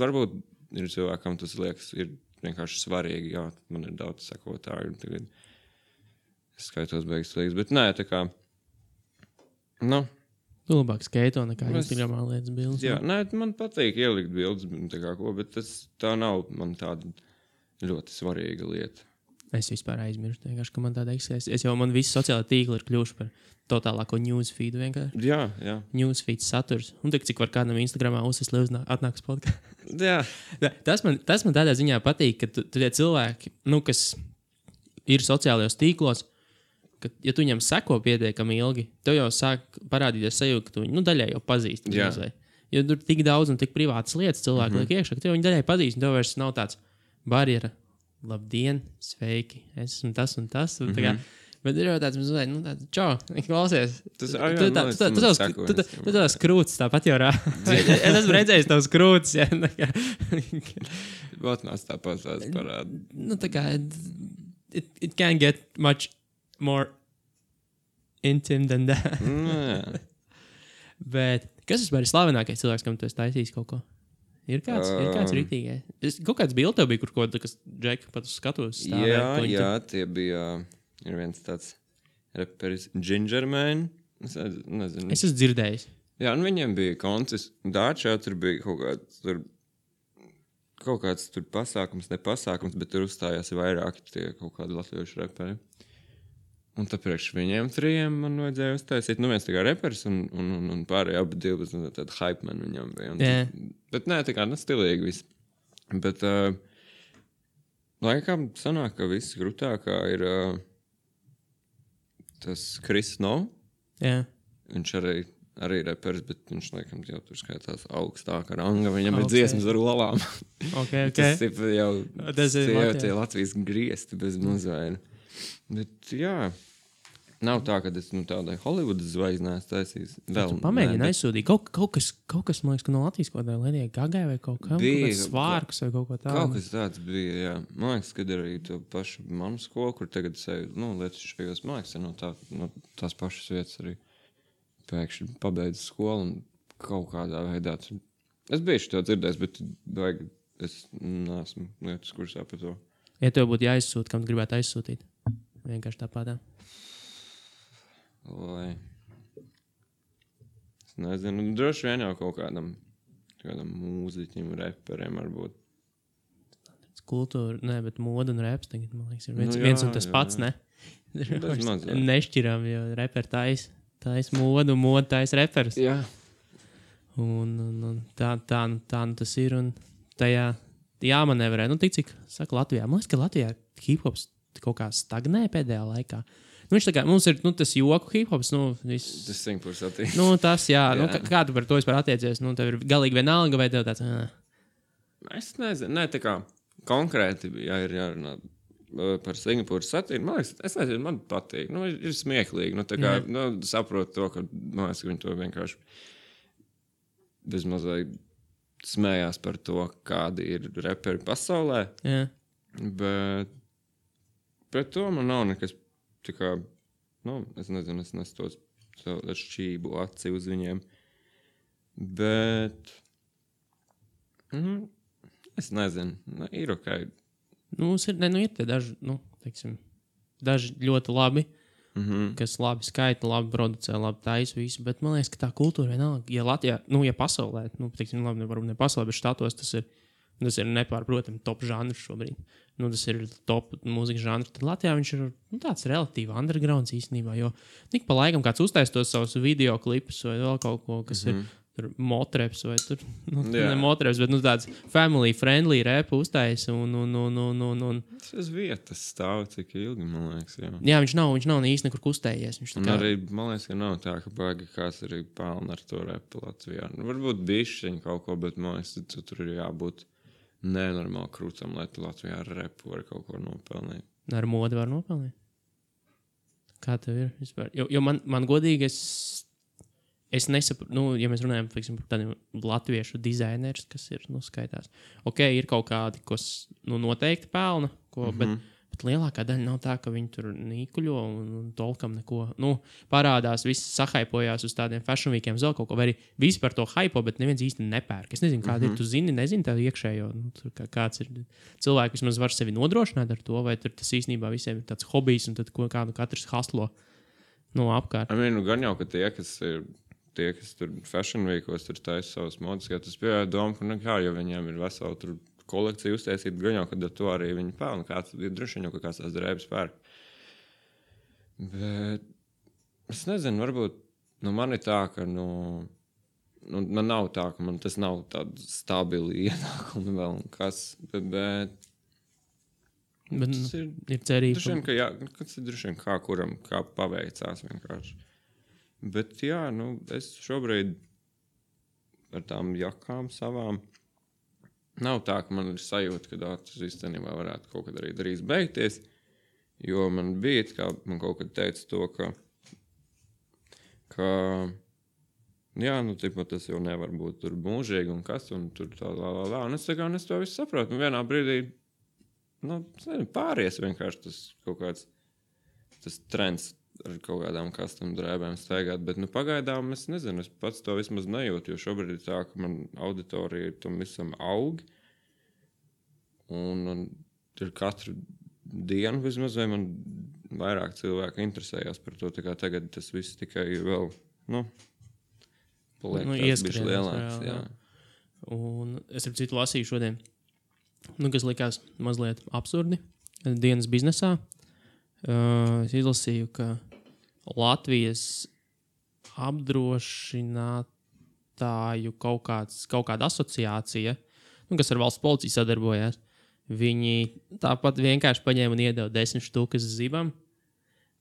varbūt ir cilvēkam tas liekas, ir vienkārši svarīgi, jā, man ir daudz sekotāju, tagad es skaitos beigas liekas, bet nē, tā kā, Tu labāk skaito nekā Instagramā lietas bildes. Jā, man patīk ielikt bildes, bet tā nav man tāda ļoti svarīga lieta. Es vispār aizmirstu, vienkārši, ka man tāda eksistē. Man visi sociālā tīkli ir kļuvuši par totālāko newsfeedu vienkārši. Jā. Newsfeed saturs. Un cik var kādam Instagramā uzsist, lai atnāks podkāsts. Jā. Tas man tādā ziņā patīk, ka tu tie cilvēki, kas ir sociālajos tīklos, ka, ja tu viņam seko pietiekami ilgi, tev jau sāk parādīties sajūta, ka tu viņu daļai jau pazīst. Jo tur tik daudz un tik privātas lietas cilvēki liek iekšā, ka tev viņu daļai pazīst, un tev vairs nav tāds barjera. Labdien, sveiki, es esmu tas un tas. Un kā, bet ir jau tāds, čau, klausies. Tu tavs krūtis tāpat jau rāda. Es esmu redzējis tavs krūtis. Vatnās tāpat tās parāda. Tā kā, it can't get much more intimate than that. Bet kas vispār ir slavenākais cilvēks, kam tu esi taisījis kaut ko? Ir kāds rītīgais. Kaut kāds bilde tev bija, kur kaut kas Džeki pat uz skatos stāvēt. Jā, tie bija, ir viens tāds reperis Gingerman. Es nezinu. Es esmu dzirdējis. Jā, un viņiem bija koncis. Dāčā tur bija kaut kāds tur nepasākums, bet tur uzstājās vairāki tie kaut kādi latviešu reperi. Un tāpēc viņiem 3 man vajadzēja uztaisīt. Viens tā kā reperis un pārējie abi 2 tādi hype man viņam bija. Bet nē, tā kā stilīgi viss. Bet laikam sanāk, ka viss grūtākā ir tas Chris Snow. Jā. Viņš arī reperis, bet viņš laikam jau tur skaitās augstāka ranga. Viņam ir dziesmas ar olām. Okay. Tas ir jau tie Latvijas griesti bez mazvaina. Bet jā, nav tā, ka es tādai Hollywoodas zvaigznēs taisīs. Pamēģini aizsūtīt. Kaut kas, man liekas, ka no Latvijas kaut kādā Ledijai Gagai vai kaut kā svārkus vai kaut ko tādu. Kaut kas tāds bija, jā. Man liekas, kad arī to pašu manu skolu, kur tagad lietas šajos, man liekas, no tās pašas vietas arī pēkšņi pabeidz skolu un kaut kādā veidā. Es biju to dzirdējis, bet es neesmu lietas kursā par to. Ja tev būtu jāizsūta, kam tu gribētu aizsūtīt? Vienkārši tāpatā. Lai. Es nezinu. Droši vien jau kaut kādam mūziķim, reperiem varbūt. Kultūra, bet moda un reps tagad, man liekas, ir viens un tas pats, ne? Nešķiram, jo reperi tais modu, moda tais reperis. Jā. Un tā tas ir, un tajā jāmanevrē. Tik cik saka Latvijā. Man liekas, ka Latvijā hip-hops kaut kā stagnē pēdējā laikā. Viņš tā kā, mums ir tas joku hip-hops, Tas simtprocentīgi. Tas, jā. Kā tu par to vispār attiecies? Tev ir galīgi vienalga, vai tev tāds... Es nezinu. Nē, tā kā konkrēti, ja ir jārunā par Singapūras satīru, man liekas, es nezinu, man patīk. Nu, ir smieklīgi. Nu, tā kā, saprotu to, ka, man liekas, ka viņi to vienkārši bezmazliet smējās par to, kādi ir reperi pasaulē. Jā. Bet pret to man nav nekas tā kā, es nezinu, es nesu tos šķību aci uz viņiem. Bet, es nezinu, ir ok. Ir tie daži, teiksim, daži ļoti labi, kas labi skaita, labi producē, labi taisa visu, bet man liekas, ka tā kultūra vienalga, ja Latvijā, ja pasaulē, teiksim, labi, varbūt ne pasaulē, bet štatos tas ir nepārprotami top žanrs šobrīd. Tas ir top mūzikas žanrs. Tad Latvijā viņš ir tāds relatīvi undergrounds īstenībā, jo tik pa laikam kāds uztais tos savus video klipus vai vēl kaut ko, kas ir tur motreps vai tur, ne motreps, bet tāds family friendly rap uztais un Tas uz vietas stāv cik ilgi, man liekas, jā. Jā, viņš nav īsti nekur kustējies. Un arī, man liekas, ka nav tā, ka baigi kāds arī pelna ar to repu Latvijā. Varbūt bišķiņ kaut ko, bet man liekas, tur ir jābūt nenormāli krūtam, lai tu Latvijā ar repu var kaut ko nopelnīt. Ar modi var nopelnīt? Kā tev ir vispār? Jo man godīgi es nesaprotu, ja mēs runājam par tādiem latviešu dizainerus, kas ir, skaitās. Ok, ir kaut kādi, kas noteikti pelna, bet lielākā daļa nav tā, ka viņi tur nīkuļo un tolkam neko. Parādās, viss sahaipojās uz tādiem fashion weekiem, vēl kaut ko, vai arī visi par to haipo, bet neviens īsti nepērk. Es nezinu, kāda ir, tu nezini tā iekšējo, kāds ir cilvēki, vismaz var sevi nodrošināt ar to, vai tur tas īstenībā visiem ir tāds hobijs un tad kādu katrs haslo apkārt. Gan jau, ka tie, kas tur fashion weekos tur taisa savas modas, ja tas bija doma, ka jo viņiem ir vesela tur kolekcija uztaisīt, gan jau, kad ar to arī viņi pelna. Kāds ir droši vien jau, ka kāds tās drēbes pērk. Bet es nezinu, varbūt man ir tā, ka man nav tā, ka man tas nav tāda stabili ienākumi vēl un kas, bet ir cerība. Droši vien, ka jā, kas ir droši vien kā kuram, kā paveicās vienkārši. Bet jā, es šobrīd ar tām jakām savām nav tā, ka man ir sajūta, ka tas īstenībā varētu kaut kad arī drīz beigties, jo man bija, kā man kaut kad teica to, ka jā, tas jau nevar būt tur mūžīgi un kas, un tur tā lā. Un es to visu saprotu, un vienā brīdī, pāries vienkārši tas kaut kāds, tas trends ar kaut kādām custom drēbēm staigāt, bet pagaidām es nezinu, es pats to vismaz nejūtu, jo šobrīd ir tā, ka man auditorija tam visam aug, un ir katru dienu vismaz, vai man vairāk cilvēku interesējās par to, tā kā tagad tas viss tikai vēl, paliek tāds bišķi lielāks, jā. Un es ar citu lasīju šodien, kas likās mazliet absurdi dienas biznesā. Es izlasīju, ka Latvijas apdrošinātāju kaut kāda asociācija, kas ar valsts policiju sadarbojās, viņi tāpat vienkārši paņēma un iedeva 10 štukas zibam,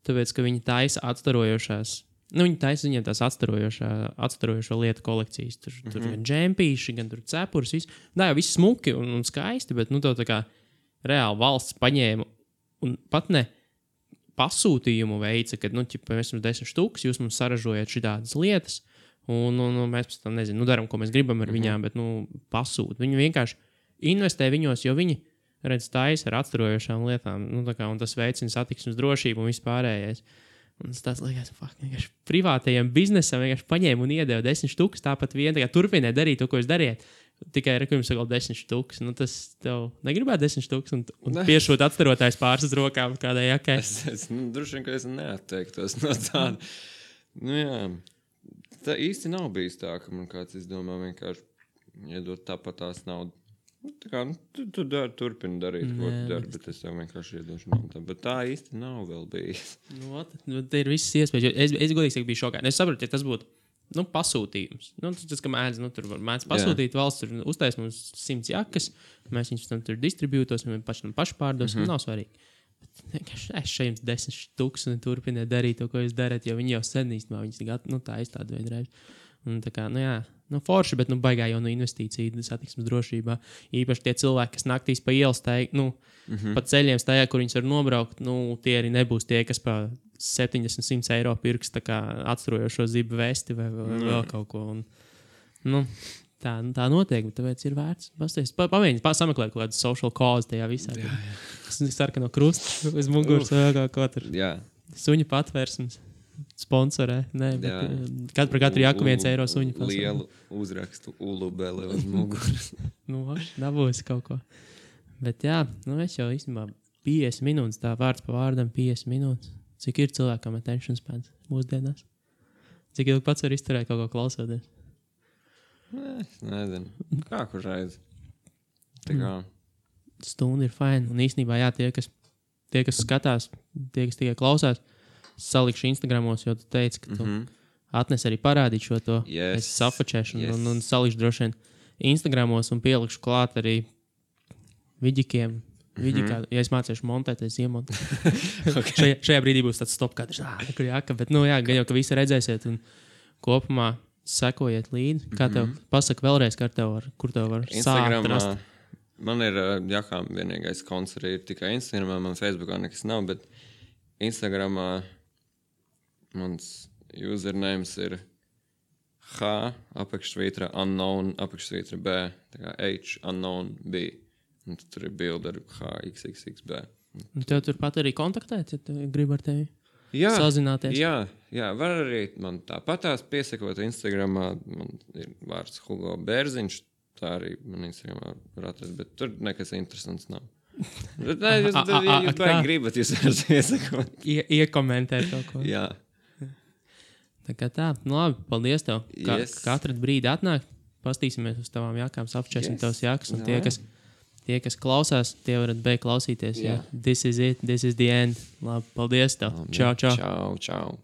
tāpēc, ka viņi taisa atstarojošās. Viņi taisa viņiem tās atstarojošo lietu kolekcijas. Tur gan džempīši, gan tur cepurs, viss. Jā, viss smuki un skaisti, bet tev tā kā reāli valsts paņēma un pat ne pasūtījumu veica, kad, mēs jums 10 štukas, jūs mums saražojat šitādas lietas, un mēs pēc tam, daram, ko mēs gribam ar viņām, bet, pasūt. Viņi vienkārši investē viņos, jo viņi, taisa ar atstarojošām lietām, un tas veicina satiksmes drošību un vispārējais. Un tas liekas, vienkārši privātajiem biznesam vienkārši paņēma un iedeva 10 štukas, tāpat vien turpināja darīt to, ko jūs dariet. Tikai jums ir 10 štukas. Tas tev negribētu 10 štukas un piešūt atstarotājs pāris uz rokām kādai jakai. Es droši vien, ka es neatteiktos no tāda. Jā. Tā īsti nav bijis tā, ka man kāds izdomā vienkārši iedot tāpat tās naudu. Tu turpini darīt, ko tu dari, bet es tev vienkārši iedošu naudu. Bet tā īsti nav vēl bijis. Te ir visas iespējas. Es godīgi saku, biju šokā. Es saprotu, ja tas būtu pasūtījums. Tas, ka mēdz, tur var mēdz pasūtīt, valsts tur uztais mums 100 jakas, mēs viņus tam tur distribūtos, vai paši pārdos, nav svarīgi. Es šeit 10 štuks un turpiniet darīt to, ko jūs darat, jo viņi jau sen īstenībā viņas tā aizstāda vienreiz. Un tā kā, forši, bet baigā jau investīcija satiksmes drošībā. Īpaši tie cilvēki, kas naktīs pa ielas pa ceļiem staigā, kur viņus var nobraukt, tie arī nebūs tie, kas pa 70-100 eiro pirks tā kā atsturojošo zibu vesti vai vēl kaut ko. Un, tā notiek, bet tāpēc ir vērts. Pamēģināt, sameklēt kaut kādu social cause tajā visā. Sarkano krustu uz muguras vai kaut tur. Suņu patvērsums. Sponsorē. Nē, bet par katru jaku 1 eiro suņu. Lielu uzrakstu ulubele uz muguras. Dabūs kaut ko. Bet jā, es jau īstenībā 50 minūtes, tā vārds pa vārdam 50 minūtes. Cik ir cilvēkam attention spans mūsdienās? Cik ilgi pats var izturēt kaut ko klausoties? Es nezinu. Kā kur reiz? Tā kā. Stunda ir fine. Un īstenībā, jā, tie, kas skatās, tie, kas tikai klausās, salikšu Instagramos, jo tu teici, ka tu atnes arī parādīt šo to. Yes. Es safačēšu un salikšu droši vien Instagramos un pielikšu klāt arī viģikiem. Viģikā, ja es mācīšu montēt, es iemontēšu. Okay. Šajā brīdī būs tāds stop kadrs. Kur jāka, bet gan jau, ka visi redzēsiet un kopumā sekojiet līdzi. Kā tev pasaka vēlreiz, kur tev var sākt rast? Man ir jakām vienīgais konts arī ir tikai Instagramā, man Facebookā nekas nav, bet Instagramā mans usernames ir H, unknown, B, tā kā H, unknown, B. Un tur ir bilde ar HXXXB. Un tev turpat arī kontaktēt, ja tu gribi ar tevi sazināties? Jā, var arī man tāpatās piesakot Instagramā, man ir vārds Hugo Bērziņš, tā arī man Instagramā var atrast, bet tur nekas interesants nav. Bet, jūs baigi gribat, jūs varat piesakot. Iekomentēt kaut ko. Jā. Tā kā tā, labi, paldies tev. Katru brīdi atnāk, pastīsimies uz tavām jakām, apčēsim tavas jakas, un tie, kas klausās, tie varat beigt klausīties. Yeah. This is it, this is the end. Labi, paldies tev. Čau. Čau.